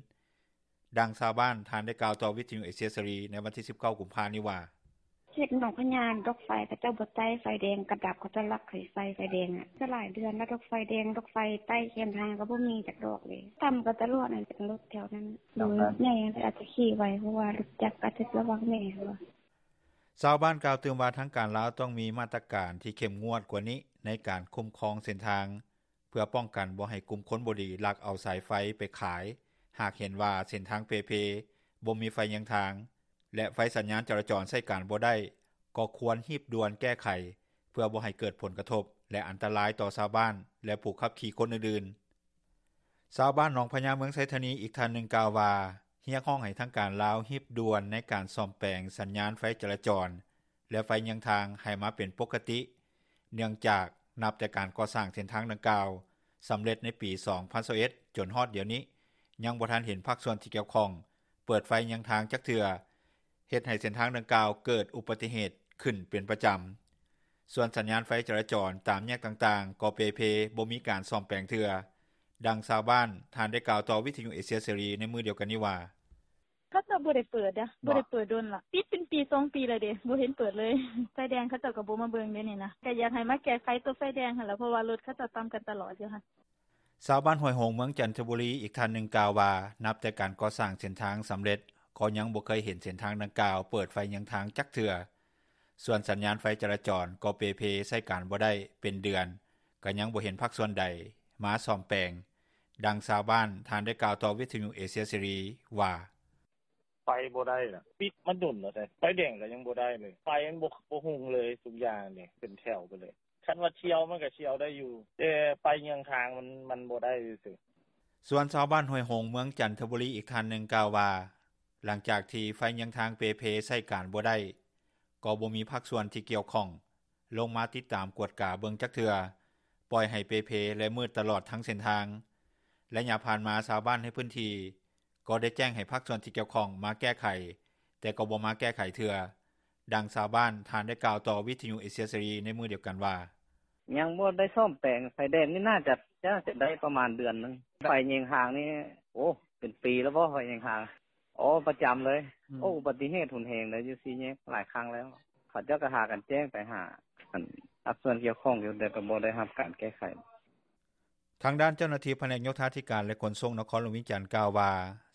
ດັ່ງຊາວບ້ານທ່ານໄດ້ກ່າວຕໍ່ວິທຍຸເອເຊຍເສລີໃນວັນທີສິບເກົ້າກຸມພານີ້ວ່າ: ເຂດໜອງພະຍາ ດອກໄຟເຂົາເຈົ້າບໍ່ໄຕ້ ໄຟແດງກະດັບ ເຂົາເຈົ້າລັກໃຫ້ໄຟ ໄຟແດງອະ ຈະຫຼາຍເດືອນແລ້ວ ດອກໄຟແດງ ດອກໄຟໃຕ້ແຄມທາງກະບໍ່ມີຈັກດອກເລີຍ ຕຳກະຕະຫຼອດຫັ້ນ ເປັນລົດແຖວນັ້ນ ລົດໃຫຍ່ອາດຈະຂີ່ໄວ ເພາະວ່າລົດຈັກອາດຈະລະວັງແດ່ຫັ້ນວ່າ. ຊາວບ້ານກ່າວຕື່ມວ່າ ທາງການລາວຕ້ອງມີມາດຕະການທີ່ເຂັ້ມງວດກວ່ານີ້ ໃນການຄຸ້ມຄອງເສັ້ນທາງ ເພື່ອປ້ອງກັນບໍ່ໃຫ້ກຸ່ມຄົນບໍ່ດີລັກເອົາສາຍໄຟໄປຂາຍ ຫາກເຫັນວ່າເສັ້ນທາງເປ່ເພ ບໍ່ມີໄຟເຍືອງທາງ ແລະ ໄຟສັນຍານຈະລາຈອນໃຊ້ການບໍ່ໄດ້ ກໍຄວນຮີບດ່ວນແກ້ໄຂ ເພື່ອບໍ່ໃຫ້ເກີດຜົນກະທົບ ແລະ ອັນຕະລາຍຕໍ່ຊາວບ້ານ ແລະ ຜູ້ຂັບຂີ່ຄົນອື່ນໆ. ຊາວບ້ານໜອງພະຍາ ເມືອງໄຊທານີ ອີກທ່ານໜຶ່ງກ່າວວ່າ ຮຽກຮ້ອງໃຫ້ທາງການລາວຮີບດ່ວນໃນການສ້ອມແປງສັນຍານໄຟຈະລາຈອນ ແລະ ໄຟເຍືອງທາງໃຫ້ມາເປັນປົກກະຕິ ເນື່ອງຈາກນັບແຕ່ການກໍ່ສ້າງເສັ້ນທາງດັ່ງກ່າວສຳເລັດໃນປີສອງພັນຊາວເອັດ ຈົນຮອດດຽວນີ້ ຍັງບໍ່ທັນເຫັນພາກສ່ວນທີ່ກ່ຽວຂ້ອງເປີດໄຟເຍືອງທາງຈັກເທື່ອ ເຮັດໃຫ້ເສັ້ນທາງດັ່ງກ່າວເກີດອຸບັດຕິເຫດຂຶ້ນເປັນປະຈຳ. ສ່ວນສັນຍານໄຟຈະລາຈອນຕາມແຍກຕ່າງໆ ກໍເປ່ເພ ບໍ່ມີການສ້ອມແປງເທື່ອ. ດັ່ງຊາວບ້ານທ່ານໄດ້ກ່າວຕໍ່ວິທຍຸເອເຊຍເສລີໃນມື້ດຽວກັນນີ້ວ່າ: ເຂົາເຈົ້າບໍ່ໄດ້ເປີດເດ້ ບໍ່ໄດ້ເປີດດົນລະ ປິດເປັນປີສອງປີແລ້ວເດ້ ບໍ່ເຫັນເປີດເລີຍ ໄຟແດງເຂົາເຈົ້າກະບໍ່ມາເບິ່ງເດນີ້ນະ ກະຢາກໃຫ້ມາແກ້ໄຂໂຕໄຟແດງຫັ້ນລະ ເພາະວ່າລົດເຂົາເຈົ້າຕຳກັນຕະຫຼອດຢູ່ຫັ້ນ. ຊາວບ້ານຫ້ວຍຫົງ ເມືອງຈັນທະບູລີ ອີກທ່ານໜຶ່ງກ່າວວ່າ ນັບແຕ່ການກໍ່ສ້າງເສັ້ນທາງສຳເລັດ ກໍຍັງບໍ່ເຄີຍເຫັນເສັ້ນທາງດັ່ງກ່າວເປີດໄຟເຍືອງທາງຈັກເທື່ອ. ສ່ວນສັນຍານໄຟຈະລາຈອນກໍເປ່ເພ ໃຊ້ການບໍ່ໄດ້ເປັນເດືອນ ກະຍັງບໍ່ເຫັນພາກສ່ວນໃດມາສ້ອມແປງ. ດັ່ງຊາວບ້ານທ່ານໄດ້ກ່າວຕໍ່ວິທຍຸເອເຊຍເສລີວ່າ: ໄປບໍ່ໄດ້ລະ ປິດມາດົນແລ້ວເດ້ ໄຟແດງກະຍັງບໍ່ໄດ້ເລີຍ ໄຟມັນບໍ່ ບໍ່ຮຸ່ງເລີຍ ທຸກຢ່າງນີ້ເປັນແຖວໄປເລີຍ ຄັນວ່າທ່ຽວມັນກະທ່ຽວໄດ້ຢູ່ ແຕ່ໄຟເຍືອງທາງມັນ ມັນບໍ່ໄດ້ຊື່ໆ. ສ່ວນຊາວບ້ານຫ້ວຍຫົງ ເມືອງຈັນທະບູລີ ອີກທ່ານໜຶ່ງກ່າວວ່າ ຫຼັງຈາກທີ່ໄຟເຍືອງທາງເປ່ເພ ໃຊ້ການບໍ່ໄດ້ ກໍບໍ່ມີພາກສ່ວນທີ່ກ່ຽວຂ້ອງລົງມາຕິດຕາມກວດກາເບິ່ງຈັກເທື່ອ ປ່ອຍໃຫ້ເປ່ເພ ແລະ ມືດຕະຫຼອດທັງເສັ້ນທາງ. ໄລຍະຜ່ານມາ ຊາວບ້ານໃນພື້ນທີ່ກໍໄດ້ແຈ້ງໃຫ້ພາກສ່ວນທີ່ກ່ຽວຂ້ອງມາແກ້ໄຂ ແຕ່ກໍບໍ່ມາແກ້ໄຂເທື່ອ. ດັ່ງຊາວບ້ານທ່ານໄດ້ກ່າວຕໍ່ວິທຍຸເອເຊຍເສລີໃນມື້ດຽວກັນວ່າ: ຍັງບໍ່ໄດ້ສ້ອມແປງ ໄຟແດງນີ້ໜ້າຈະ ໜ້າຈະໄດ້ປະມານເດືອນໜຶ່ງ ໄຟເຍືອງທາງນີ້ ໂອ້ ເປັນປີແລ້ວບໍ່ ໄຟເຍືອງທາງ ອໍ ປະຈຳເລີຍ ອືມ ໂອ້ ອຸບັດຕິເຫດຮຸນແຮງເລີຍ ຢູ່ສີ່ແຍກຫຼາຍຄັ້ງແລ້ວ ເຂົາເຈົ້າກະຫາກັນແຈ້ງໄປຫາ ອັນ ພາກສ່ວນກ່ຽວຂ້ອງຢູ່ ແຕ່ກະບໍ່ໄດ້ຮັບການແກ້ໄຂ. ທາງດ້ານເຈົ້າໜ້າທີ່ພະແນກໂຍທາທິການ ແລະ ຂົນສົ່ງນະຄອນຫຼວງວຽງຈັນກ່າວວ່າ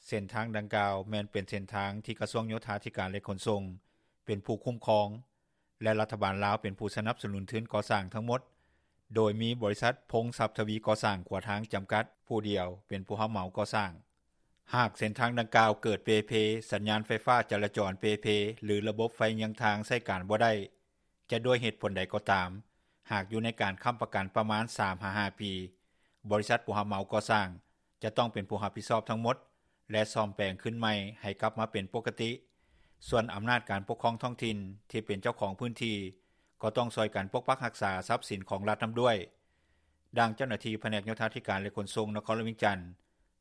ເສັ້ນທາງດັ່ງກ່າວແມ່ນເປັນເສັ້ນທາງທີ່ກະຊວງໂຍທາທິການ ແລະ ຂົນສົ່ງເປັນຜູ້ຄຸ້ມຄອງ ແລະ ລັດຖະບານລາວເປັນຜູ້ສະໜັບສະໜູນທຶນກໍ່ສ້າງທັງໝົດ ໂດຍມີບໍລິສັດ ພົງຊັບທະວີກໍ່ສ້າງຂົວທາງຈຳກັດ ຜູ້ດຽວເປັນຜູ້ຮັບເໝົາກໍ່ສ້າງ. ຫາກເສັ້ນທາງດັ່ງກ່າວເກີດເປ່ເພ ສັນຍານໄຟຟ້າຈະລາຈອນເປ່ເພ ຫຼື ລະບົບໄຟເຍືອງທາງໃຊ້ການບໍ່ໄດ້ ຈະດ້ວຍເຫດຜົນໃດກໍຕາມ ຫາກຢູ່ໃນການຄ້ຳປະກັນປະມານສາມຫາຫ້າປີ ບໍລິສັດຜູ້ຮັບເໝົາກໍ່ສ້າງຈະຕ້ອງເປັນຜູ້ຮັບຜິດຊອບທັງໝົດ ແລະ ສ້ອມແປງຄືນໃໝ່ໃຫ້ກັບມາເປັນປົກກະຕິ. ສ່ວນອຳນາດການປົກຄອງທ້ອງຖິ່ນທີ່ເປັນເຈົ້າຂອງພື້ນທີ່ ກໍຕ້ອງຊ່ອຍກັນປົກປັກຮັກສາຊັບສິນຂອງລັດນຳດ້ວຍ. ດັ່ງເຈົ້າໜ້າທີ່ພະແນກໂຍທາທິການ ແລະ ຂົນສົ່ງນະຄອນຫຼວງວຽງຈັນ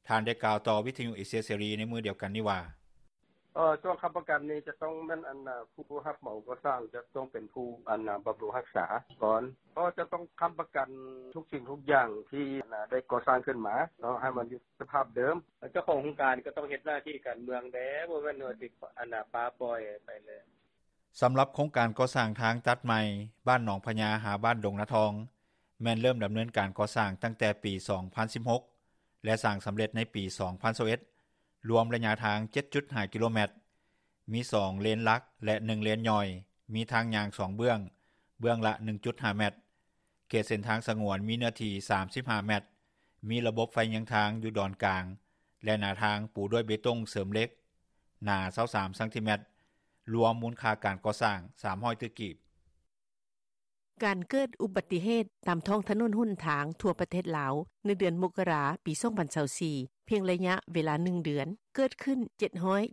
ທ່ານໄດ້ກ່າວຕໍ່ວິທຍຸເອເຊຍເສລີໃນມື້ດຽວກັນນີ້ວ່າ: ເອີ ຊ່ວງຄ້ຳປະກັນນີ້ຈະຕ້ອງແມ່ນ ອັນ ຜູ້ຮັບເໝົາກໍ່ສ້າງຈະຕ້ອງເປັນຜູ້ ອັນ ບຳລຸງຮັກສາກ່ອນ ກໍຈະຕ້ອງຄ້ຳປະກັນທຸກສິ່ງທຸກຢ່າງທີ່ ອັນ ໄດ້ກໍ່ສ້າງຂຶ້ນມາເນາະ ໃຫ້ມັນຢູ່ສະພາບເດີມ ເຈົ້າຂອງໂຄງການກໍຕ້ອງເຮັດໜ້າທີ່ການເມືອງແດ່ ບໍ່ແມ່ນວ່າຊິ ອັນ ປະປ່ອຍໄປເລີຍ. ສຳລັບໂຄງການກໍ່ສ້າງທາງຕັດໃໝ່ ບ້ານໜອງພະຍາ ຫາບ້ານດົງນາທອງ ແມ່ນເລີ່ມດຳເນີນການກໍ່ສ້າງຕັ້ງແຕ່ປີສອງພັນສິບຫົກ ແລະ ສ້າງສຳເລັດໃນປີສອງພັນຊາວເອັດ ລວມໄລຍະທາງເຈັດຈຸດຫ້າກິໂລແມັດ, ມີສອງເລນຫຼັກ ແລະ ໜຶ່ງເລນຍ່ອຍ, ມີທາງຍ່າງສອງເບື້ອງ, ເບື້ອງລະໜຶ່ງຈຸດຫ້າແມັດ. ເຂດເສັ້ນທາງສະຫງວນມີເນື້ອທີ່ສາມສິບຫ້າແມັດ, ມີລະບົບໄຟເຍືອງທາງຢູ່ດອນກາງ ແລະ ໜ້າທາງປູດ້ວຍເບຕົງເສີມເຫຼັກ ໜາຊາວສາມຊັງຕີແມັດ, ລວມມູນຄ່າການກໍ່ສ້າງສາມຮ້ອຍຕື້ກີບ. ການເກີດອຸບັດຕິເຫດຕາມທ້ອງຖະໜົນຫົນທາງທົ່ວປະເທດລາວ ໃນເດືອນມົກກະລາ ປີ ສອງພັນຊາວສີ່ ພຽງໄລຍະເວລາ ໜຶ່ງ ເດືອນ ເກີດຂຶ້ນ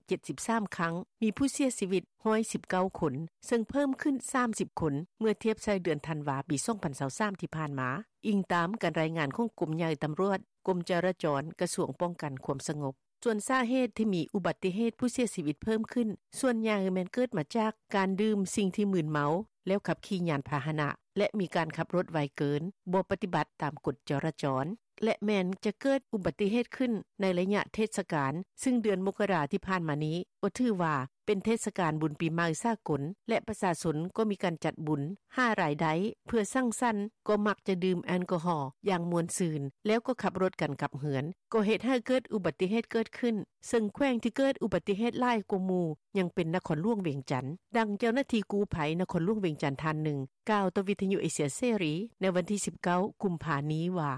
773 ຄັ້ງ, ມີຜູ້ເສຍຊີວິດ 119 ຄົນ ເຊິ່ງເພີ່ມຂຶ້ນ 30 ຄົນ ເມື່ອທຽບໃສ່ເດືອນທັນວາ ປີ 2023 ທີ່ຜ່ານມາ, ອີງຕາມການລາຍງານຂອງກົມໃຫຍ່ຕຳຫຼວດ, ກົມຈະລາຈອນ, ກະຊວງປ້ອງກັນຄວາມສະຫງົບ. ສ່ວນສາເຫດທີ່ມີອຸບັດຕິເຫດຜູ້ເສຍຊີວິດເພີ່ມຂຶ້ນ ສ່ວນໃຫຍ່ແມ່ນເກີດມາຈາກການດື່ມສິ່ງທີ່ມຶນເມົາ ແລ້ວຂັບຂີ່ຍານພາຫະນະ ແລະ ມີການຂັບລົດໄວເກີນ, ບໍ່ປະຕິບັດຕາມກົດຈະລາຈອນ ແລະ ແມ່ນຈະເກີດອຸບັດຕິເຫດຂຶ້ນໃນໄລຍະເທດສະການ, ຊຶ່ງເດືອນມົກກະລາທີ່ຜ່ານມານີ້ ກໍຖືວ່າເປັນເທດສະການບຸນປີໃໝ່ສາກົນ ແລະ ປະຊາຊົນກໍມີການຈັດບຸນ, ຫາລາຍໄດ້ເພື່ອສັງສັນ, ກໍມັກຈະດື່ມແອລກໍຮໍຢ່າງມ່ວນຊື່ນ ແລ້ວກໍຂັບລົດກັນກັບເຮືອນ, ກໍເຮັດໃຫ້ເກີດອຸບັດຕິເຫດເກີດຂຶ້ນ, ເຊິ່ງແຂວງທີ່ເກີດອຸບັດຕິເຫດຫຼາຍກວ່າໝູ່ ຍັງເປັນນະຄອນຫຼວງວຽງຈັນ. ດັ່ງເຈົ້າໜ້າທີ່ກູ້ໄພນະຄອນຫຼວງວຽງຈັນທ່ານໜຶ່ງ ກ່າວຕໍ່ວິທະຍຸເອເຊຍເສລີໃນວັນທີ ສິບເກົ້າ ກຸມພານີ້ວ່າ: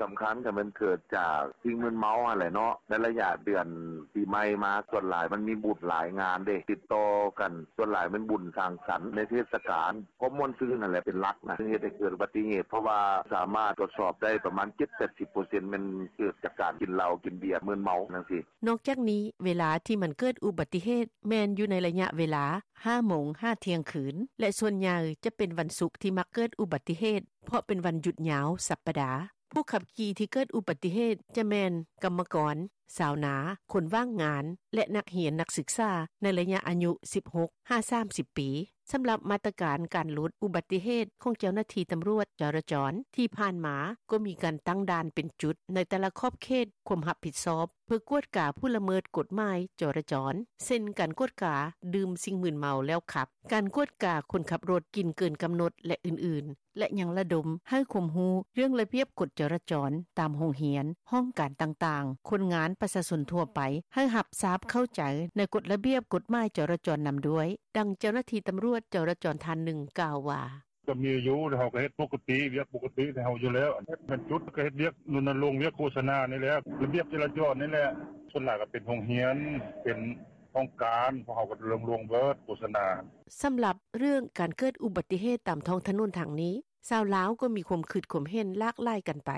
ສຳຄັນກໍແມ່ນເກີດຈາກສິ່ງມຶນເມົາຫັ້ນແຫຼະເນາະ, ໃນໄລຍະເດືອນປີໃໝ່ມາ ສ່ວນຫຼາຍມັນມີບຸນຫຼາຍງານເດ້ ຕິດຕໍ່ກັນ, ສ່ວນຫຼາຍແມ່ນບຸນສັງສັນໃນເທດສະການ, ຄວາມມ່ວນຊື່ນຫັ້ນແຫຼະເປັນຫຼັກນະ ເຮັດໃຫ້ເກີດອຸບັດຕິເຫດ, ເພາະວ່າສາມາດກວດສອບໄດ້ປະມານ ເຈັດແປດສິບເປີເຊັນ ແມ່ນເກີດຈາກການກິນເຫຼົ້າກິນເບຍມຶນເມົາຈັ່ງຊີ້. ນອກຈາກນີ້, ເວລາທີ່ມັນເກີດອຸບັດຕິເຫດ ແມ່ນຢູ່ໃນໄລຍະເວລາ ຫ້າໂມງ ຫາທ່ຽງຄືນ ແລະ ສ່ວນໃຫຍ່ຈະເປັນວັນສຸກທີ່ມັກເກີດອຸບັດຕິເຫດ ເພາະເປັນວັນຢຸດຍາວສັບປະດາ. ຜູ້ຂັບຂີ່ທີ່ເກີດອຸບັດຕິເຫດຈະແມ່ນກຳມະກອນ, ຊາວນາ, ຄົນວ່າງງານ ແລະ ນັກຮຽນນັກສຶກສາໃນໄລຍະອາຍຸ ສິບຫົກ ຫາ ສາມສິບປີ. ສຳລັບມາດຕະການການຫຼຸດອຸບັດຕິເຫດຂອງເຈົ້າໜ້າທີ່ຕຳຫຼວດຈະລາຈອນ ທີ່ຜ່ານມາກໍມີການຕັ້ງດ່ານເປັນຈຸດໃນແຕ່ລະຂອບເຂດຄວາມຮັບຜິດຊອບ ເພື່ອກວດກາຜູ້ລະເມີດກົດໝາຍຈະລາຈອນ ເຊັ່ນ ການກວດກາດື່ມສິ່ງມຶນເມົາແລ້ວຂັບ, ການກວດກາຄົນຂັບລົດກິນເກີນກຳນົດ ແລະ ອື່ນໆ ແລະ ຍັງລະດົມໃຫ້ຄວາມຮູ້ເລື່ອງລະບຽບກົດຈະລາຈອນຕາມໂຮງຮຽນ, ຫ້ອງການຕ່າງໆ, ຄົນງານ, ປະຊາຊົນທົ່ວໄປ ໃຫ້ຮັບຊາບເຂົ້າໃຈໃນກົດລະບຽບກົດໝາຍຈະລາຈອນນຳດ້ວຍ. ດັ່ງເຈົ້າໜ້າທີ່ຕຳຫຼວດຈະລາຈອນທ່ານໜຶ່ງກ່າວວ່າ: ກໍມີຢູ່ ເຮົາກໍເຮັດປົກກະຕິ ວຽກປົກກະຕິຂອງເຮົາຢູ່ແລ້ວ, ເຮັດເປັນຈຸດ ກໍເຮັດວຽກ ລົນນະລົງວຽກໂຄສະນານີ້ແຫຼະ ລະບຽບຈະລາຈອນນີ້ແຫຼະ, ສ່ວນຫຼາຍກໍເປັນໂຮງຮຽນ ເປັນຫ້ອງການ ພວກເຮົາກໍລົງໆເບີດໂຄສະນາ. ສຳລັບເລື່ອງການເກີດອຸບັດຕິເຫດຕາມທ້ອງຖະໜົນທາງນີ້, ຊາວລາວກໍມີຄວາມຄິດຄວາມເຫັນຫຼາກຫຼາຍກັນໄປ.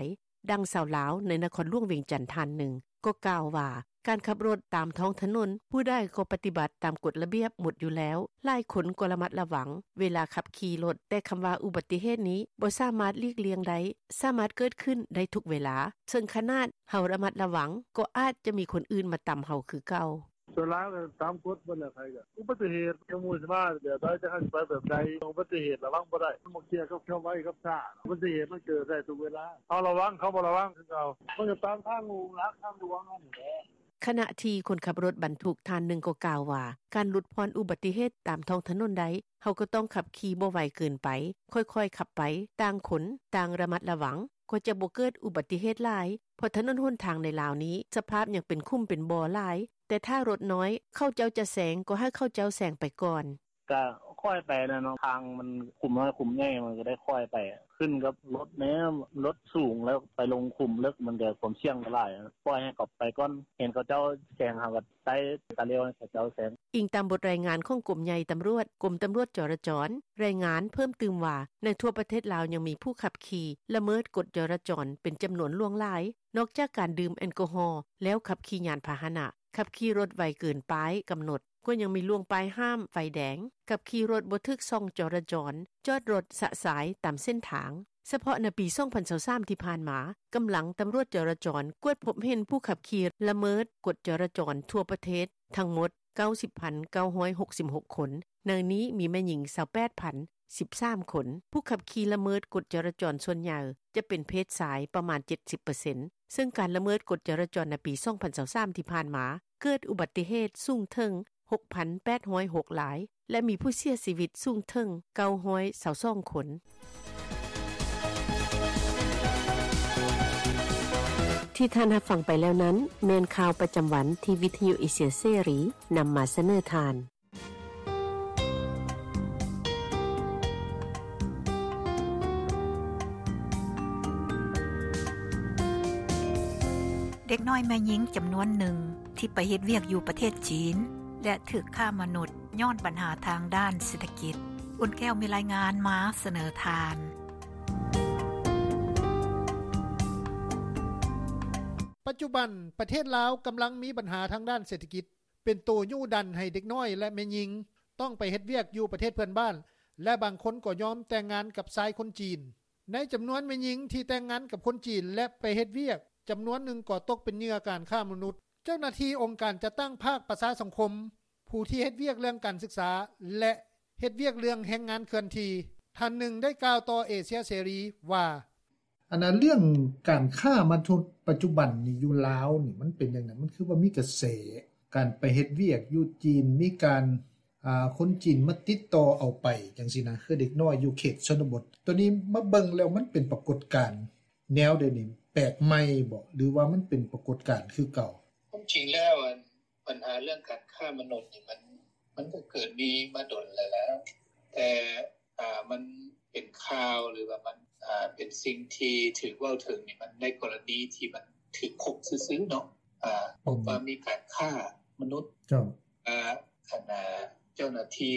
ດັ່ງຊາວລາວໃນນະຄອນຫຼວງວຽງຈັນທ່ານໜຶ່ງກໍກ່າວວ່າ ການຂັບລົດຕາມທ້ອງຖະໜົນ ຜູ້ໃດກໍປະຕິບັດຕາມກົດລະບຽບໝົດຢູ່ແລ້ວ, ຫຼາຍຄົນກໍລະມັດລະວັງເວລາຂັບຂີ່ລົດ, ແຕ່ຄຳວ່າອຸບັດຕິເຫດນີ້ບໍ່ສາມາດຫຼີກລ່ຽງໄດ້, ສາມາດເກີດຂຶ້ນໄດ້ທຸກເວລາ, ເຊິ່ງຂະໜາດເຮົາລະມັດລະວັງ ກໍອາດຈະມີຄົນອື່ນມາຕຳເຮົາຄືເກົ່າ. ສ່ວນຫຼາຍກໍຕາມກົດເບິດແຫຼະ ໃຜກໍອຸບັດຕິເຫດ ຈັກໝູ່ຊິມາແບບໃດ ຈັກເຮົາຊິໄປແບບໃດ ອຸບັດຕິເຫດລະວັງບໍ່ໄດ້ ມັນບໍ່ກ່ຽວກັບຄວາມໄວກັບຊ້າ ອຸບັດຕິເຫດມັນເກີດໄດ້ທຸກເວລາ ເຮົາລະວັງ ເຂົາບໍ່ລະວັງຄືເກົ່າ ມັນກໍຕາມທາງຫຼັກທາງຫຼວງຫັ້ນແຫຼະ. ຂະນະທີ່ຄົນຂັບລົດບັນທຸກທ່ານໜຶ່ງກໍກ່າວວ່າ ການຫຼຸດຜ່ອນອຸບັດຕິເຫດຕາມທ້ອງຖະໜົນໄດ້ ເຮົາກໍຕ້ອງຂັບຂີ່ບໍ່ໄວເກີນໄປ, ຄ່ອຍໆຂັບໄປ, ຕ່າງຄົນຕ່າງລະມັດລະວັງ ກໍຈະບໍ່ເກີດອຸບັດຕິເຫດຫຼາຍ ເພາະຖະໜົນຫົນທາງໃນລາວນີ້ ສະພາບຍັງເປັນຂຸມເປັນບໍ່ຫຼາຍ, ແຕ່ຖ້າລົດນ້ອຍເຂົາເຈົ້າຈະແຊງ ກໍໃຫ້ເຂົາເຈົ້າແຊງໄປກ່ອນ. ກະຄ່ອຍໄປແຫຼະເນາະ ທາງມັນຂຸມນ້ອຍຂຸມໃຫຍ່ ມັນກໍໄດ້ຄ່ອຍໄປ ຂຶ້ນກັບລົດແດ່ ລົດສູງແລ້ວໄປລົງຂຸມເລິກ ມັນກໍຄວາມສ່ຽງຫຼາຍ ປ່ອຍໃຫ້ເຂົາໄປກ່ອນ ເຫັນເຂົາເຈົ້າແຊງ ເຮົາກໍໄຕ່ຕາຫຼຽວໃຫ້ເຂົາເຈົ້າແຊງ. ອີງຕາມບົດລາຍງານຂອງກົມໃຫຍ່ຕຳຫຼວດ ກົມຕຳຫຼວດຈະລາຈອນ ລາຍງານເພີ່ມຕື່ມວ່າ ໃນທົ່ວປະເທດລາວຍັງມີຜູ້ຂັບຂີ່ລະເມີດກົດຈະລາຈອນເປັນຈຳນວນຫຼວງຫຼາຍ, ນອກຈາກການດື່ມແອລກໍຮໍແລ້ວຂັບຂີ່ຍານພາຫະນະ, ຂັບຂີ່ລົດໄວເກີນປ້າຍກຳນົດ, ກໍຍັງມີລ່ວງປ້າຍຫ້າມໄຟແດງ, ຂັບຂີ່ລົດບໍ່ຖືກຊ່ອງຈະລາຈອນ, ຈອດລົດຊະຊາຍຕາມເສັ້ນທາງ. ສະເພາະໃນປີ ສອງພັນຊາວສາມ ທີ່ຜ່ານມາ, ກຳລັງຕຳຫຼວດຈະລາຈອນກວດພົບເຫັນຜູ້ຂັບຂີ່ລະເມີດກົດຈະລາຈອນທົ່ວປະເທດທັງໝົດ ເກົ້າສິບພັນເກົ້າຮ້ອຍຫົກສິບຫົກຄົນ, ໃນນີ້ມີແມ່ຍິງ ຊາວແປດພັນສິບສາມຄົນ. ຜູ້ຂັບຂີ່ລະເມີດກົດຈະລາຈອນສ່ວນໃຫຍ່ຈະເປັນເພດຊາຍປະມານ ເຈັດສິບເປີເຊັນ ເຊິ່ງການລະເມີດກົດຈະລາຈອນໃນປີ ສອງພັນຊາວສາມ ທີ່ຜ່ານມາ ເກີດອຸບັດຕິເຫດສູງເຖິງ ຫົກພັນແປດຮ້ອຍຫົກລາຍ ແລະ ມີຜູ້ເສຍຊີວິດສູງເຖິງ ເກົ້າຮ້ອຍຊາວສອງຄົນ. ທີ່ທ່ານຮັບຟັງໄປແລ້ວນັ້ນ ແມ່ນຂ່າວປະຈຳວັນທີ່ວິທະຍຸເອເຊຍເສລີນຳມາສະເໜີທ່ານ. ເດັກນ້ອຍແມ່ຍິງຈຳນວນໜຶ່ງທີ່ໄປເຮັດວຽກຢູ່ປະເທດຈີນ ແລະ ຖືກຄ້າມະນຸດຍ້ອນບັນຫາທາງດ້ານເສດຖະກິດ. ອຸ່ນແກ້ວມີລາຍງານມາສະເໜີທ່ານ. ປັດຈຸບັນ ປະເທດລາວກຳລັງມີບັນຫາທາງດ້ານເສດຖະກິດ ເປັນໂຕຍູ້ດັນໃຫ້ເດັກນ້ອຍ ແລະ ແມ່ຍິງຕ້ອງໄປເຮັດວຽກຢູ່ປະເທດເພື່ອນບ້ານ ແລະ ບາງຄົນກໍຍອມແຕ່ງງານກັບຊາຍຄົນຈີນ. ໃນຈຳນວນແມ່ຍິງທີ່ແຕ່ງງານກັບຄົນຈີນ ແລະ ໄປເຮັດວຽກ ຈຳນວນໜຶ່ງກໍຕົກເປັນເຫຍື່ອການຄ້າມະນຸດ. ເຈົ້າໜ້າທີ່ອົງການຈັດຕັ້ງພາກປະຊາສັງຄົມ, ຜູ້ທີ່ເຮັດວຽກເລື່ອງການສຶກສາ ແລະ ເຮັດວຽກເລື່ອງແຮງງານເຄື່ອນທີ່ ທ່ານໜຶ່ງໄດ້ກ່າວຕໍ່ເອເຊຍເສລີວ່າ: ອັນນ່າ ເລື່ອງການຄ້າມະນຸດປັດຈຸບັນນີ້ຢູ່ລາວນີ້ ມັນເປັນຈັ່ງໃດ? ມັນຄືວ່າມີກະແສການໄປເຮັດວຽກຢູ່ຈີນ, ມີການ ອ່າ ຄົນຈີນມາຕິດຕໍ່ເອົາໄປຈັ່ງຊີ້ນະ ຄືເດັກນ້ອຍຢູ່ເຂດຊົນນະບົດ. ໂຕນີ້ມາເບິ່ງແລ້ວມັນເປັນປາກົດການແນວໃດນີ້? ແປກໃໝ່ບໍ ຫຼືວ່າມັນເປັນປາກົດການຄືເກົ່າ? ຄວາມຈິງແລ້ວ ອັນ ບັນຫາເລື່ອງການຄ້າມະນຸດນີ້ ມັນ ມັນກໍເກີດມີມາດົນແລ້ວແຫຼະ, ແຕ່ ອ່າ ມັນເປັນຂ່າວ ຫຼືວ່າມັນ ອ່າ ເປັນສິ່ງທີ່ຖືກເວົ້າເຖິງນີ້ ມັນໃນກໍລະນີທີ່ມັນຖືກພົບຊື່ໆເນາະ, ອ່າ ພົບວ່າມີການຄ້າມະນຸດ. ເຈົ້າ ອ່າ ອັນ ອ່າ ເຈົ້າໜ້າທີ່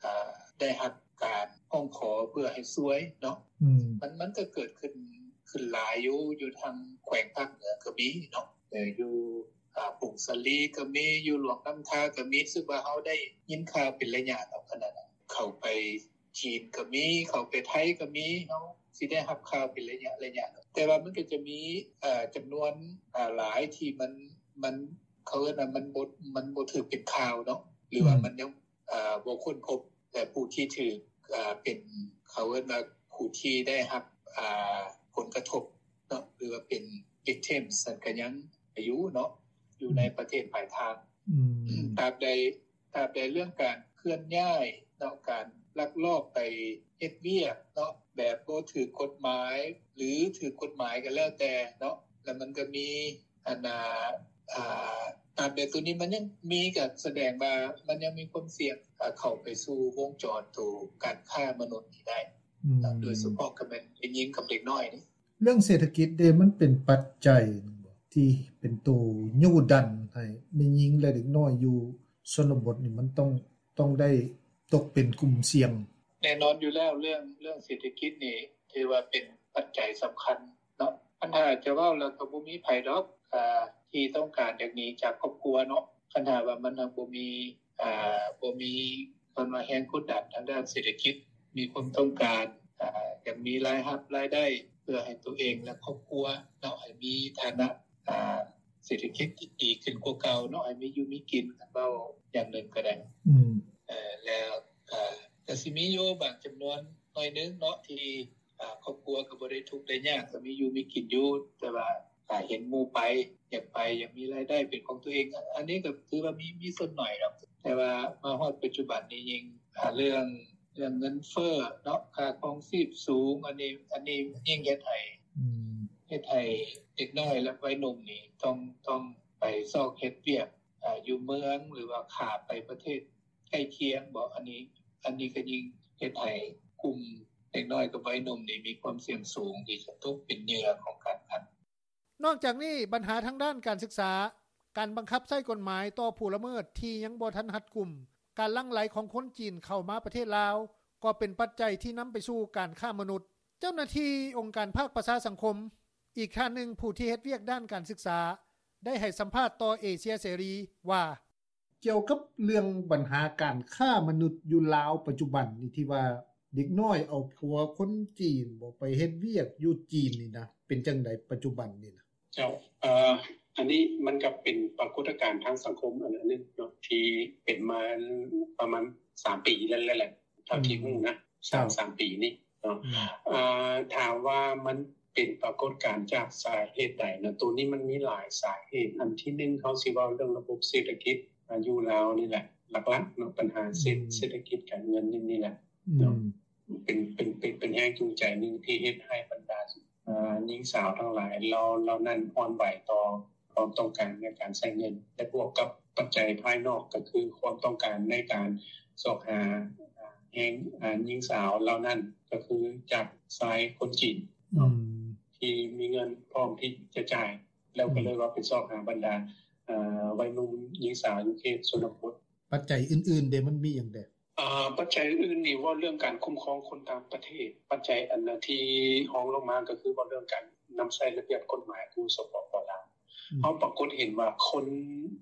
ອ່າ ໄດ້ຮັບການຮ້ອງຂໍເພື່ອໃຫ້ຊ່ວຍເນາະ. ອືມ ມັນ ມັນກໍເກີດຂຶ້ນ ຂຶ້ນຫຼາຍຢູ່ ຢູ່ທາງແຂວງພາກເໜືອກໍມີເນາະ, ເອີ ຢູ່ ອ່າ ຜົ້ງສາລີກໍມີ, ຢູ່ຫຼວງນ້ຳທາກໍມີ. ຮູ້ສຶກວ່າເຮົາໄດ້ຍິນຂ່າວເປັນໄລຍະເນາະ, ຂະໜາດເຂົ້າໄປຈີນກໍມີ, ເຂົ້າໄປໄທກໍມີ, ເຮົາຊິໄດ້ຮັບຂ່າວເປັນໄລຍະໆເນາະ. ແຕ່ວ່າມັນກໍຈະມີ ເອີ ຈຳນວນ ເອີ ຫຼາຍທີ່ມັນ ມັນ ເຂົາເອີ້ນວ່າມັນບໍ່ ມັນບໍ່ຖືກເປັນຂ່າວເນາະ ຫຼືວ່າ ອືມ ມັນຍັງ ເອີ ບໍ່ຄົ້ນພົບ ແລະ ຜູ້ທີ່ຖືກ ເອີ ເປັນ ເຂົາເອີ້ນວ່າຜູ້ທີ່ໄດ້ຮັບ ເອີ ຜົນກະທົບເນາະ ຫຼືວ່າເປັນ victims ນັ້ນກໍຍັງຢູ່ເນາະ ຢູ່ໃນ ອືມ ປະເທດປາຍທາງ. ອືມ ຕາບໃດ ຕາບໃດເລື່ອງການເຄື່ອນຍ້າຍເນາະ ການລັກລອບໄປເຮັດວຽກເນາະ ແບບບໍ່ຖືກກົດໝາຍ ຫຼື ຖືກກົດໝາຍກໍແລ້ວແຕ່ເນາະ, ແລ້ວມັນກໍມີ ອັນ ອ່າ ອ່າ ຕາມແບບໂຕນີ້ມັນຍັງມີ ກໍສະແດງວ່າມັນຍັງມີຄວາມສ່ຽງ ເຂົ້າໄປສູ່ວົງຈອນໂຕການຄ້າມະນຸດນີ້ໄດ້. ອືມ ໂດຍສະເພາະກໍແມ່ນເດັກຍິງກັບເດັກນ້ອຍນີ້. ເລື່ອງເສດຖະກິດເດ ມັນເປັນປັດໄຈໜຶ່ງບໍ່ ທີ່ເປັນໂຕຍູ້ດັນໃຫ້ແມ່ຍິງ ແລະ ເດັກນ້ອຍຢູ່ຊົນນະບົດນີ້ ມັນຕ້ອງ ຕ້ອງໄດ້ຕົກເປັນກຸ່ມສ່ຽງ? ແນ່ນອນຢູ່ແລ້ວ ເລື່ອງ ເລື່ອງເສດຖະກິດນີ້ ຖືວ່າເປັນປັດໄຈສຳຄັນເນາະ. ຄັນຖ້າຈະເວົ້າແລ້ວກໍບໍ່ມີໃຜດອກ ອ່າ ທີ່ຕ້ອງການຢາກໜີຈາກຄອບຄົວເນາະ, ຄັນຖ້າວ່າມັນບໍ່ມີ ອ່າ ບໍ່ມີ ເອີ້ນວ່າແຮງກົດດັນທາງດ້ານເສດຖະກິດ, ມີຄວາມຕ້ອງການ ອ່າ ຢາກມີລາຍຮັບລາຍໄດ້ເພື່ອໃຫ້ຕົວເອງ ແລະ ຄອບຄົວເນາະ ໃຫ້ມີຖານະ ອ່າ ເສດຖະກິດທີ່ດີຂຶ້ນກວ່າເກົ່າເນາະ, ໃຫ້ມີຢູ່ມີກິນ ຄັນເວົ້າຢ່າງໜຶ່ງກໍໄດ້. ອືມ ເອີ ແລ້ວກໍ ກໍຊິມີຢູ່ບາງຈຳນວນໜ້ອຍໜຶ່ງເນາະ ທີ່ ອ່າ ຄອບຄົວກໍບໍ່ໄດ້ທຸກໄດ້ຍາກ ກໍມີຢູ່ມີກິນຢູ່, ແຕ່ວ່າ ອ່າ ເຫັນໝູ່ໄປ ຢາກໄປ ຢາກມີລາຍໄດ້ເປັນຂອງຕົວເອງ, ອັນນີ້ກໍຖືວ່າມີ ມີສ່ວນໜ້ອຍດອກ. ແຕ່ວ່າມາຮອດປັດຈຸບັນນີ້ ຍິ່ງ ອ່າ ເລື່ອງ ເລື່ອງເງິນເຟີ້ເນາະ ຄ່າຄອງຊີບສູງ, ອັນນີ້ ອັນນີ້ຍິ່ງເຮັດໃຫ້ ອືມ ເຮັດໃຫ້ເດັກນ້ອຍ ແລະ ໄວໜຸ່ມນີ້ ຕ້ອງ ຕ້ອງໄປຊອກເຮັດວຽກ ອ່າ ຢູ່ເມືອງ ຫຼືວ່າຂ້າມໄປປະເທດໃກ້ຄຽງບໍ. ອັນນີ້ ອັນນີ້ກໍຍິ່ງເຮັດໃຫ້ກຸ່ມເດັກນ້ອຍກັບໄວໜຸ່ມນີ້ ມີຄວາມສ່ຽງສູງທີ່ຈະຕົກເປັນເຫຍື່ອຂອງການຄ້າມະນຸດ. ນອກຈາກນີ້ ບັນຫາທາງດ້ານການສຶກສາ, ການບັງຄັບໃຊ້ກົດໝາຍຕໍ່ຜູ້ລະເມີດທີ່ຍັງບໍ່ທັນຮັດກຸມ, ການຫຼັ່ງໄຫຼຂອງຄົນຈີນເຂົ້າມາປະເທດລາວ ກໍເປັນປັດໄຈທີ່ນຳໄປສູ່ການຄ້າມະນຸດ. ເຈົ້າໜ້າທີ່ອົງການພາກປະຊາສັງຄົມ ອີກທ່ານໜຶ່ງຜູ້ທີ່ເຮັດວຽກດ້ານການສຶກສາ ໄດ້ໃຫ້ສຳພາດຕໍ່ເອເຊຍເສລີວ່າ: ກ່ຽວກັບເລື່ອງບັນຫາການຄ້າມະນຸດຢູ່ລາວປັດຈຸບັນນີ້ ທີ່ວ່າເດັກນ້ອຍເອົາຜົວຄົນຈີນບໍ ໄປເຮັດວຽກຢູ່ຈີນນີ້ນະ ເປັນຈັ່ງໃດປັດຈຸບັນນີ້ນະ? ເຈົ້າ ເອີ ອັນນີ້ມັນກໍເປັນປາກົດການທາງສັງຄົມອັນໜຶ່ງເນາະ ທີ່ເປັນມາປະມານສາມປີແລ້ວແຫຼະ ເທົ່າທີ່ຮູ້ນະ ສອງສາມປີນີ້ເນາະ. ອືມ ອ່າ ຖາມວ່າມັນເປັນປາກົດການຈາກສາເຫດໃດນະ? ໂຕນີ້ມັນມີຫຼາຍສາເຫດ. ອັນທີໜຶ່ງ ເຮົາຊິເວົ້າເລື່ອງລະບົບເສດຖະກິດ ອ່າ ຢູ່ລາວນີ້ແຫຼະ ຫຼັກໆເນາະ, ບັນຫາເສດ ອືມ ເສດຖະກິດການເງິນນີ້ ນີ້ແຫຼະເນາະ. ອືມ ເປັນ ເປັນ ເປັນ ເປັນແຮງຈູງໃຈໜຶ່ງທີ່ເຮັດໃຫ້ບັນດາ ອ່າ ຍິງສາວທັງຫຼາຍເຫຼົ່າ ເຫຼົ່ານັ້ນອ່ອນໄຫວຕໍ່ຄວາມຕ້ອງການໃນການໃຊ້ເງິນ ແລະ ບວກກັບປັດໄຈພາຍນອກ ກໍຄືຄວາມຕ້ອງການໃນການຊອກຫາ ອ່າ ແຮງ ອ່າ ຍິງສາວເຫຼົ່ານັ້ນ ກໍຄືຈາກຊາຍຄົນຈີນເນາະ ອືມ ທີ່ມີເງິນພ້ອມທີ່ຈະຈ່າຍ ແລ້ວກໍເລີຍວ່າໄປຊອກຫາບັນດາ ອືມ ເອີ ໄວໜຸ່ມຍິງສາວຢູ່ເຂດຊົນນະບົດ. ປັດໄຈອື່ນໆເດ ມັນມີຫຍັງແດ່? ປັດໄຈອື່ນໆນີ້ ເວົ້າເລື່ອງການຄຸ້ມຄອງຄົນຕ່າງປະເທດ. ປັດໄຈອັນທີ່ຮອງລົງມາ ກໍຄືເວົ້າເລື່ອງການນຳໃຊ້ລະບຽບກົດໝາຍຢູ່ ສປປ ລາວ. ເຮົາປາກົດເຫັນວ່າຄົນ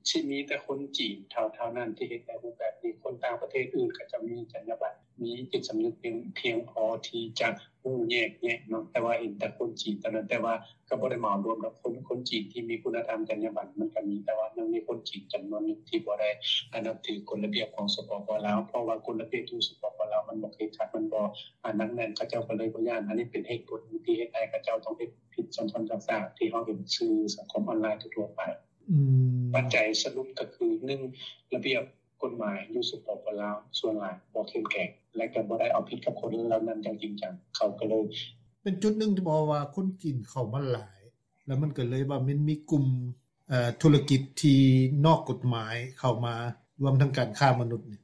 ຊິມີແຕ່ຄົນຈີນເທົ່ານັ້ນທີ່ເຮັດໃນຮູບແບບນີ້. ຄົນຕ່າງປະເທດອື່ນ ເຂົາເຈົ້າມີຈັນຍາບັນ ມີຈິດສຳນຶກພຽງພໍທີ່ຈະຮູ້ແຍກແຍະເນາະ. ແຕ່ວ່າເຫັນແຕ່ຄົນຈີນເທົ່ານັ້ນ ແຕ່ວ່າ ກໍບໍ່ໄດ້ເໝົາລວມດອກ ຄົນ ຄົນຈີນທີ່ມີຄຸນນະທຳ ຈັນຍາບັນມັນກໍມີ ແຕ່ວ່າຍັງມີຄົນຈີນຈຳນວນໜຶ່ງທີ່ບໍ່ໄດ້ ອາ ນັບຖືກົດລະບຽບຂອງ ສປປ ລາວ. ເພາະວ່າກົດລະບຽບຢູ່ ສປປ ລາວມັນບໍ່ເຄັ່ງຄັດ ມັນບໍ່ ອາ ໜັກແໜ້ນ ເຂົາເຈົ້າກໍເລີຍບໍ່ຢ້ານ. ອັນນີ້ເປັນເຫດຜົນທີ່ເຮັດໃຫ້ເຂົາເຈົ້າຕ້ອງເຮັດຜິດຊ້ຳໆຊາກໆ ທີ່ເຮົາເຫັນສື່ສັງຄົມອອນລາຍທົ່ວໆໄປ. ປັດໄຈສະຫຼຸບກໍຄື ໜຶ່ງ ລະບຽບ ກົດໝາຍຢູ່ ສປປ ລາວ ສ່ວນຫຼາຍບໍ່ເຂັ້ມແຂງ ແລະ ກໍບໍ່ໄດ້ເອົາຜິດກັບຄົນເຫຼົ່ານັ້ນຢ່າງຈິງຈັງ ເຂົາກໍເລີຍ ເປັນຈຸດໜຶ່ງທີ່ບອກວ່າຄົນຈີນເຂົ້າມາຫຼາຍ ແລ້ວມັນກໍເລີຍວ່າມັນມີກຸ່ມ ເອີ ທຸລະກິດທີ່ນອກກົດໝາຍເຂົ້າມາ ລວມທັງການຄ້າມະນຸດນີ້.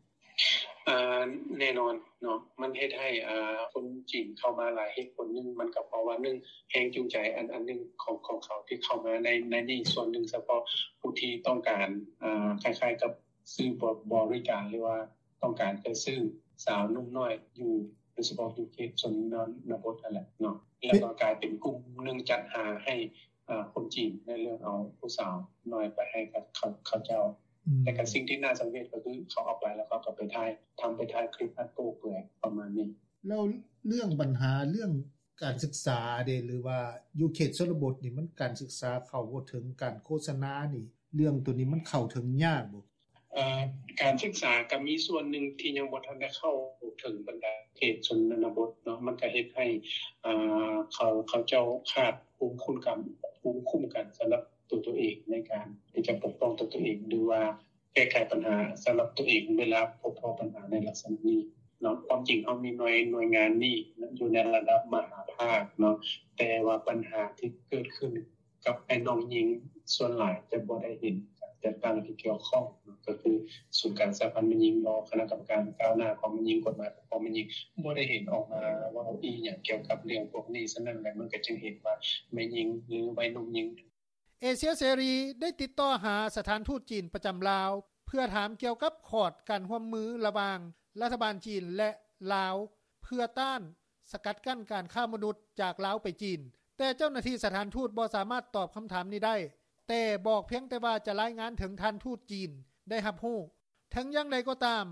ອາ ແນ່ນອນເນາະ ມັນເຮັດໃຫ້ ອາ ຄົນຈີນເຂົ້າມາຫຼາຍ. ເຫດຜົນໜຶ່ງ ມັນກໍເພາະວ່າ ໜຶ່ງ ແຮງຈູງໃຈອັນ ອັນໜຶ່ງຂອງ ຂອງເຂົາທີ່ເຂົ້າມາໃນ ໃນນີ້ ສ່ວນໜຶ່ງສະເພາະຜູ້ທີ່ຕ້ອງການ ອາ ຄ້າຍໆກັບ ຊື້ບໍ ບໍລິການ ຫຼືວ່າຕ້ອງການຈະຊື້ສາວໜຸ່ມນ້ອຍຢູ່ ໂດຍສະເພາະຢູ່ເຂດຊົນນະບົດຫັ້ນແຫຼະເນາະ ແລ້ວກໍກາຍເປັນກຸ່ມໜຶ່ງຈັດຫາໃຫ້ ອາ ຄົນຈີນໃນເລື່ອງເອົາຜູ້ສາວນ້ອຍໄປໃຫ້ກັບເຂົາ ເຂົາເຈົ້າ. ແຕ່ກໍສິ່ງທີ່ໜ້າສັງເວດກໍຄືເຂົາເອົາໄປແລ້ວເຂົາກໍໄປຖ່າຍ ທຳ ໄປຖ່າຍຄລິບອັນໂປ້ເປືອຍປະມານນີ້. ແລ້ວເລື່ອງບັນຫາເລື່ອງການສຶກສາເດ ຫຼືວ່າຢູ່ເຂດຊົນນະບົດນີ້ ມັນການສຶກສາເຂົ້າບໍ່ເຖິງ ການໂຄສະນານີ້ ເລື່ອງໂຕນີ້ມັນເຂົ້າເຖິງຍາກບໍ່? ເອີ ການສຶກສາກໍມີສ່ວນໜຶ່ງທີ່ຍັງບໍ່ທັນໄດ້ເຂົ້າເຖິງບັນດາເຂດຊົນນະບົດເນາະ ມັນກໍເຮັດໃຫ້ ເອີ ເຂົາ ເຂົາເຈົ້າຂາດພູມຄຸ້ມກັນ ພູມຄຸ້ມກັນສຳລັບຕົວ ຕົວເອງ ໃນການທີ່ຈະປົກປ້ອງຕົວ ຕົວເອງ ຫຼືວ່າແກ້ໄຂບັນຫາສຳລັບຕົວເອງ ເວລາພົບພໍ້ບັນຫາໃນລັກສະນະນີ້ເນາະ. ຄວາມຈິງເຮົາມີໜ່ວຍ ໜ່ວຍງານນີ້ຢູ່ໃນລະດັບມະຫາພາກເນາະ ແຕ່ວ່າບັນຫາທີ່ເກີດຂຶ້ນ ກັບອ້າຍນ້ອງຍິງ ສ່ວນຫຼາຍຈະບໍ່ໄດ້ເຫັນການຈັດຕັ້ງທີ່ກ່ຽວຂ້ອງ ກໍຄືສູນກາງສະຫະພັນແມ່ຍິງບໍ ຄະນະກຳມະການກ້າວໜ້າຂອງແມ່ຍິງ ກົດໝາຍປົກປ້ອງແມ່ຍິງ ບໍ່ໄດ້ເຫັນອອກມາເວົ້າອີ່ຫຍັງກ່ຽວກັບເລື່ອງພວກນີ້. ສະນັ້ນແຫຼະ ມັນກໍຈຶ່ງເຫັນວ່າແມ່ຍິງ ຫຼື ໄວໜຸ່ມຍິງ. ເອເຊຍເສລີໄດ້ຕິດຕໍ່ຫາສະຖານທູດຈີນປະຈຳລາວ ເພື່ອຖາມກ່ຽວກັບຂອດການຮ່ວມມືລະຫວ່າງລັດຖະບານຈີນ ແລະ ລາວ ເພື່ອຕ້ານ ສະກັດກັ້ນການຄ້າມະນຸດຈາກລາວໄປຈີນ, ແຕ່ເຈົ້າໜ້າທີ່ສະຖານທູດບໍ່ສາມາດຕອບຄຳຖາມນີ້ໄດ້, ແຕ່ບອກພຽງແຕ່ວ່າຈະລາຍງານເຖິງທ່ານທູດຈີນໄດ້ຮັບຮູ້. ເຖິງຢ່າງໃດກໍຕາມ,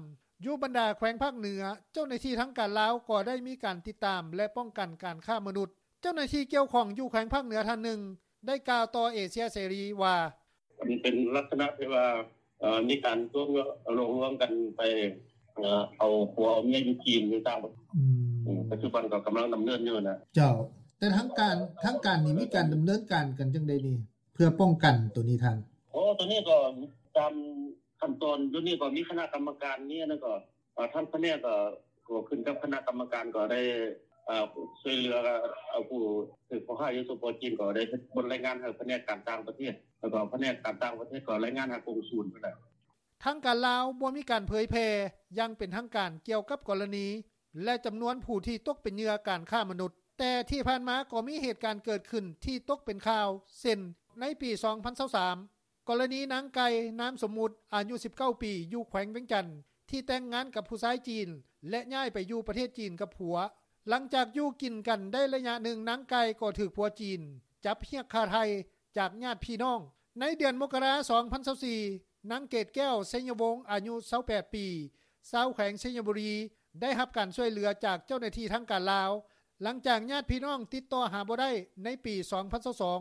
ຢູ່ບັນດາແຂວງພາກເໜືອ, ເຈົ້າໜ້າທີ່ທາງການລາວກໍໄດ້ມີການຕິດຕາມ ແລະ ປ້ອງກັນການຄ້າມະນຸດ. ເຈົ້າໜ້າທີ່ກ່ຽວຂ້ອງຢູ່ແຂວງພາກເໜືອທ່ານໜຶ່ງ ໄດ້ກ່າວຕໍ່ເອເຊຍເສລີວ່າ, ມັນເປັນລັກສະນະທີ່ວ່າ ເອີ ມີການລວມ ຫຼອກລວງກັນໄປ ເອີ ເອົາຜົວເອົາເມຍຢູ່ຈີນ ຢູ່ຕ່າງປະເທດ. ອືມ ປັດຈຸບັນກໍກຳລັງດຳເນີນຢູ່ນະ. ເຈົ້າ, ແຕ່ທາງການ ທາງການນີ້ມີການດຳເນີນການກັນຈັ່ງໃດນີ້ ເພື່ອປ້ອງກັນໂຕນີ້ທ່ານ? ໂອ້ ໂຕນີ້ກໍຕາມຂັ້ນຕອນ ຢູ່ນີ້ກໍມີຄະນະກຳມະການ ມີອັນນັ້ນກໍ ເອີ ທາງພະແນກກໍ ກໍຂຶ້ນກັບຄະນະກຳມະການ ກໍໄດ້ ເອີ ຊ່ວຍເຫຼືອ ເອົາຜູ້ຖືກຂໍ້ຫາຢູ່ ສປ ຈີນ ກໍໄດ້ເຮັດບົດລາຍງານໃຫ້ພະແນກການຕ່າງປະເທດ ແລ້ວກໍພະແນກການຕ່າງປະເທດກໍລາຍງານຫາກົງສູນພຸ້ນແຫຼະ. ທາງການລາວບໍ່ມີການເຜີຍແຜ່ຢ່າງເປັນທາງການກ່ຽວກັບກໍລະນີ ແລະ ຈຳນວນຜູ້ທີ່ຕົກເປັນເຫຍື່ອການຄ້າມະນຸດ, ແຕ່ທີ່ຜ່ານມາກໍມີເຫດການເກີດຂຶ້ນທີ່ຕົກເປັນຂ່າວ ເຊັ່ນ ໃນປີສອງພັນຊາວສາມ ກໍລະນີນາງໄກ່ ນາມສົມມຸດ ອາຍຸສິບເກົ້າປີ ຢູ່ແຂວງວຽງຈັນ ທີ່ແຕ່ງງານກັບຜູ້ຊາຍຈີນ ແລະ ຍ້າຍໄປຢູ່ປະເທດຈີນກັບຜົວ. ຫຼັງຈາກຢູ່ກິນກັນໄດ້ໄລຍະໜຶ່ງ, ນາງໄກ່ກໍຖືກຜົວຈີນຈັບຮຽກຄ່າໄຖ່ຈາກຍາດພີ່ນ້ອງ. ໃນເດືອນມົກກະລາ ສອງພັນຊາວສີ່ ນາງເກດແກ້ວ ໄຊຍະວົງ ອາຍຸຊາວແປດປີ ຊາວແຂວງໄຊຍະບູລີ ໄດ້ຮັບການຊ່ວຍເຫຼືອຈາກເຈົ້າໜ້າທີ່ທາງການລາວ ຫຼັງຈາກຍາດພີ່ນ້ອງຕິດຕໍ່ຫາບໍ່ໄດ້ໃນປີສອງພັນຊາວສອງ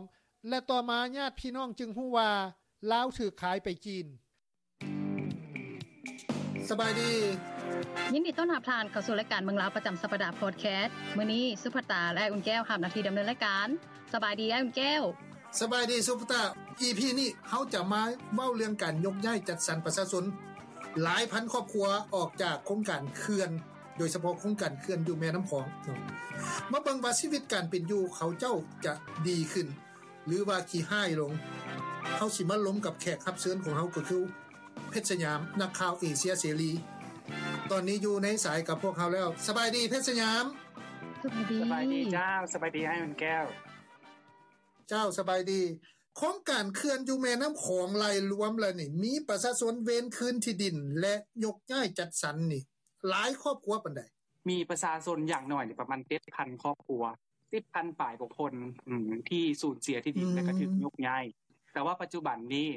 ແລະ ຕໍ່ມາຍາດພີ່ນ້ອງຈຶ່ງຮູ້ວ່າລາວຖືກຂາຍໄປຈີນ. ສະບາຍດີ. ຍິນດີຕ້ອນຮັບທ່ານເຂົ້າສູ່ລາຍການເມືອງລາວປະຈຳສັບປະດາພອດແຄສ. ມື້ນີ້ສຸພັດຕາ ແລະ ອຸ່ນແກ້ວຮັບໜ້າທີ່ດຳເນີນລາຍການ. ສະບາຍດີອ້າຍອຸ່ນແກ້ວ. ສະບາຍດີສຸພັດຕາ. ອີພີນີ້ເຮົາຈະມາເວົ້າເລື່ອງການຍົກຍ້າຍຈັດສັນປະຊາຊົນຫຼາຍພັນຄອບຄົວອອກຈາກໂຄງການເຂື່ອນ ໂດຍສະເພາະໂຄງການເຂື່ອນຢູ່ແມ່ນ້ຳຂອງ. ມາເບິ່ງວ່າຊີວິດການເປັນຢູ່ເຂົາເຈົ້າຈະດີຂຶ້ນ ຫຼືວ່າຂີ້ຮ້າຍລົງ. ເຮົາຊິມາລົມກັບແຂກຮັບເຊີນຂອງເຮົາ ກໍຄືເພັດສະຫຍາມ ນັກຂ່າວເອເຊຍເສລີ ຕອນນີ້ຢູ່ໃນສາຍກັບພວກເຮົາແລ້ວ. ສະບາຍດີເພັດສະຫຍາມ. ສະບາຍດີ. ສະບາຍດີເຈົ້າ. ສະບາຍດີອ້າຍອຸ່ນແກ້ວ. ເຈົ້າ ສະບາຍດີ. ໂຄງການເຂື່ອນຢູ່ແມ່ນ້ຳຂອງໄລ່ລວມແລ້ວນີ້ ມີປະຊາຊົນເວນຄືນທີ່ດິນ ແລະ ຍົກຍ້າຍຈັດສັນນີ້ ຫຼາຍຄອບຄົວປານໃດ? ມີປະຊາຊົນຢ່າງໜ້ອຍນີ້ປະມານເຈັດພັນຄອບຄົວ ສິບພັນປາຍກວ່າຄົນ ອືມ ທີ່ສູນເສຍທີ່ດິນ ອືມ ແລະກໍຖືກຍົກຍ້າຍ. ແຕ່ວ່າປັດຈຸບັນນີ້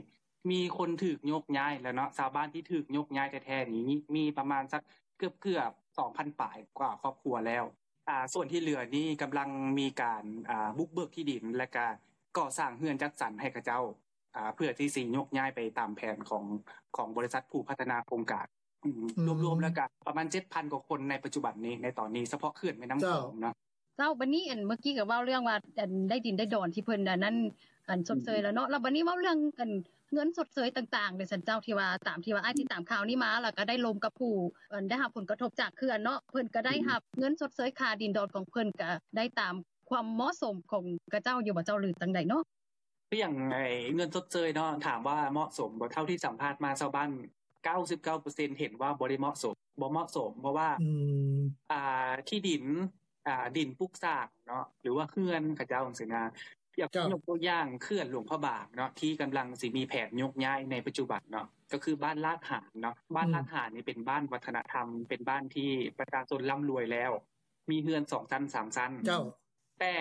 ມີຄົນຖືກຍົກຍ້າຍແລ້ວເນາະ, ຊາວບ້ານທີ່ຖືກຍົກຍ້າຍແທ້ໆນີ້ມີປະມານສັກເກືອບໆສອງພັນປາຍກວ່າຄອບຄົວແລ້ວ. ອ່າ ສ່ວນທີ່ເຫຼືອນີ້ກຳລັງມີການ ອ່າ ບຸກເບີກທີ່ດິນ ແລະກະກໍ່ສ້າງເຮືອນຈັດສັນໃຫ້ເຂົາເຈົ້າ ອ່າ ເພື່ອທີ່ຊິຍົກຍ້າຍໄປຕາມແຜນຂອງ ຂອງບໍລິສັດຜູ້ພັດທະນາໂຄງການ. ອືມ ອືມ ລວມໆແລ້ວກະປະມານເຈັດພັນກວ່າຄົນໃນປັດຈຸບັນນີ້ ໃນຕອນນີ້ ສະເພາະເຂື່ອນແມ່ນ້ຳຂອງເນາະ. ເຈົ້າ ບາດນີ້ ອັນ ເມື່ອກີ້ກໍເວົ້າເລື່ອງວ່າ ອັນ ໄດ້ດິນໄດ້ດອນທີ່ເພິ່ນ ອັນນັ້ນ ອັນ ຊົດເຊີຍແລ້ວເນາະ. ແລ້ວບາດນີ້ເວົ້າເລື່ອງ ອັນ ເງິນຊົດເຊີຍຕ່າງໆເດຊັ້ນເຈົ້າ ທີ່ວ່າ ຕາມທີ່ວ່າອ້າຍຕິດຕາມຂ່າວນີ້ມາ ແລ້ວກໍໄດ້ລົມກັບຜູ້ ອັນ ໄດ້ຮັບຜົນກະທົບຈາກເຂື່ອນເນາະ, ເພິ່ນກໍໄດ້ຮັບເງິນຊົດເຊີຍຄ່າດິນດອນຂອງເພິ່ນ ກໍໄດ້ຕາມຄວາມເໝາະສົມຂອງຂະເຈົ້າຢູ່ບໍ່ເຈົ້າ ຫຼືຈັ່ງໃດເນາະ? ຄືຫຍັງ ໄອ້ເງິນຊົດເຊີຍເນາະ ຖາມວ່າເໝາະສົມບໍ່? ເທົ່າທີ່ສຳພາດມາ ຊາວບ້ານເກົ້າສິບເກົ້າເປີເຊັນເຫັນວ່າບໍ່ໄດ້ເໝາະສົມ ບໍ່ເໝາະສົມ ເພາະວ່າ ອືມ ອ່າ ທີ່ດິນ ອ່າ ດິນປຸກສ້າງເນາະ ຫຼືວ່າເຮືອນເຂົາເຈົ້າຈັ່ງຊີ້ນະ. ຍົກ ເຈົ້າ ຍົກຕົວຢ່າງເຂື່ອນຫຼວງພະບາງເນາະ ທີ່ກຳລັງຊິມີແຜນຍົກຍ້າຍໃນປັດຈຸບັນເນາະ ກໍຄືບ້ານລາດຫານເນາະ. ບ້ານ ອືມ ລາດຫານນີ້ເປັນບ້ານວັດທະນະທຳ ເປັນບ້ານທີ່ປະຊາຊົນລ່ຳລວຍແລ້ວ ມີເຮືອນສອງຊັ້ນ ສາມຊັ້ນ. ເຈົ້າ. ແຕ່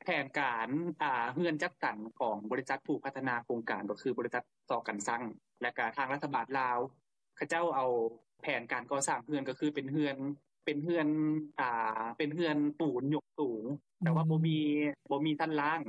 ແຜນການ ອ່າ ເຮືອນຈັດສັນຂອງບໍລິສັດຜູ້ພັດທະນາໂຄງການ ກໍຄືບໍລິສັດ ຊ.ກັນຊັງ ແລະກະທາງລັດຖະບານລາວ ເຂົາເຈົ້າເອົາແຜນການກໍ່ສ້າງເຮືອນ ກໍຄືເປັນເຮືອນ ເປັນເຮືອນ ອ່າ ເປັນເຮືອນປູນຍົກສູງ ແຕ່ວ່າ ອືມ ບໍ່ມີ ບໍ່ມີຊັ້ນລ່າງ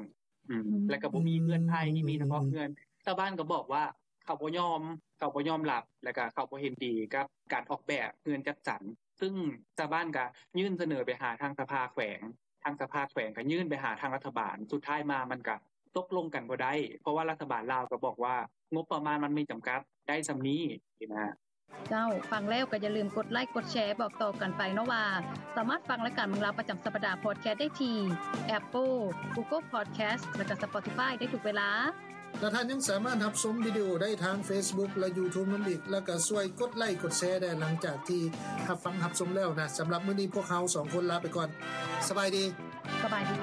ອືມ ອືມ ແລະກະບໍ່ມີເຮືອນໄມ້ ອືມ ມີສະເພາະເຮືອນ. ຊາວບ້ານກໍບອກວ່າເຂົາບໍ່ຍອມ ເຂົາບໍ່ຍອມຮັບ ແລະກະເຂົາບໍ່ເຫັນດີກັບການອອກແບບເຮືອນຈັດສັນ ຊຶ່ງຊາວບ້ານກໍຍື່ນສະເໜີໄປຫາທາງສະພາແຂວງ ທາງສະພາແຂວງກໍຍື່ນໄປຫາທາງລັດຖະບານ ສຸດທ້າຍມາມັນກໍຕົກລົງກັນບໍ່ໄດ້ ເພາະວ່າລັດຖະບານລາວກໍບອກວ່າງົບປະມານມັນມີຈຳກັດ ໄດ້ສ່ຳນີ້ຊີ້ນະ. ເຈົ້າ ຟັງແລ້ວກໍຢ່າລືມກົດໄລກົດແຊ ບອກຕໍ່ກັນໄປເນາະວ່າ ສາມາດຟັງລາຍການເມືອງລາວປະຈຳສັບປະດາພອດແຄສໄດ້ທີ່ Apple, Google Podcast ແລະກະ Spotify ໄດ້ທຸກເວລາ. ແລະທ່ານຍັງສາມາດຮັບຊົມວິດີໂອໄດ້ທາງ Facebook ແລະ YouTube ນຳອີກ ແລະກໍຊ່ວຍກົດໄລກົດແຊໄດ້ຫຼັງຈາກທີ່ຮັບຟັງຮັບຊົມແລ້ວນະ. ສຳລັບມື້ນີ້ພວກເຮົາສອງຄົນລາໄປກ່ອນ. ສະບາຍດີ. ສະບາຍດີ.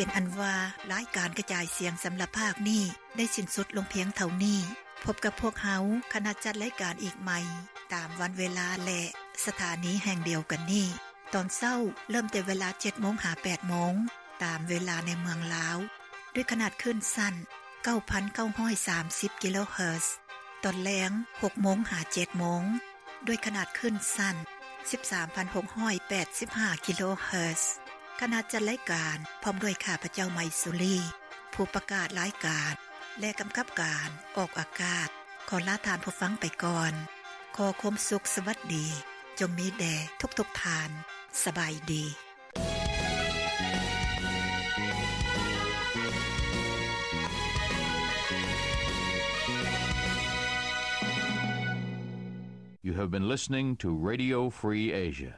ເປັນອັນວ່າ ລາຍການກະຈາຍສຽງສຳລັບພາກນີ້ ໄດ້ສິ້ນສຸດລົງພຽງເທົ່ານີ້. ພົບກັບພວກເຮົາ ຄະນະຈັດລາຍການອີກໃໝ່ ຕາມວັນເວລາ ແລະ ສະຖານີແຫ່ງດຽວກັນນີ້ ຕອນເຊົ້າ ເລີ່ມແຕ່ເວລາເຈັດໂມງຫາແປດໂມງ ຕາມເວລາໃນເມືອງລາວ ດ້ວຍຂະໜາດຄື້ນສັ້ນ ເກົ້າພັນເກົ້າຮ້ອຍສາມສິບກິໂລເຮີດ, ຕອນແລງ ຫົກໂມງຫາເຈັດໂມງ ດ້ວຍຂະໜາດຄື້ນສັ້ນ ສິບສາມພັນຫົກຮ້ອຍແປດສິບຫ້າກິໂລເຮີດ. ຄະນະຈັດລາຍການ ພ້ອມດ້ວຍຂ້າພະເຈົ້າ ໄມຊູລີ ຜູ້ປະກາດລາຍການ ແລະ ກຳກັບການອອກອາກາດ ຂໍລາທ່ານຜູ້ຟັງໄປກ່ອນ. ຂໍຄວາມສຸກສະຫວັດດີ ຈົ່ງມີແດ່ທຸກໆທ່ານ. ສະບາຍດີ. You have been listening to Radio Free Asia.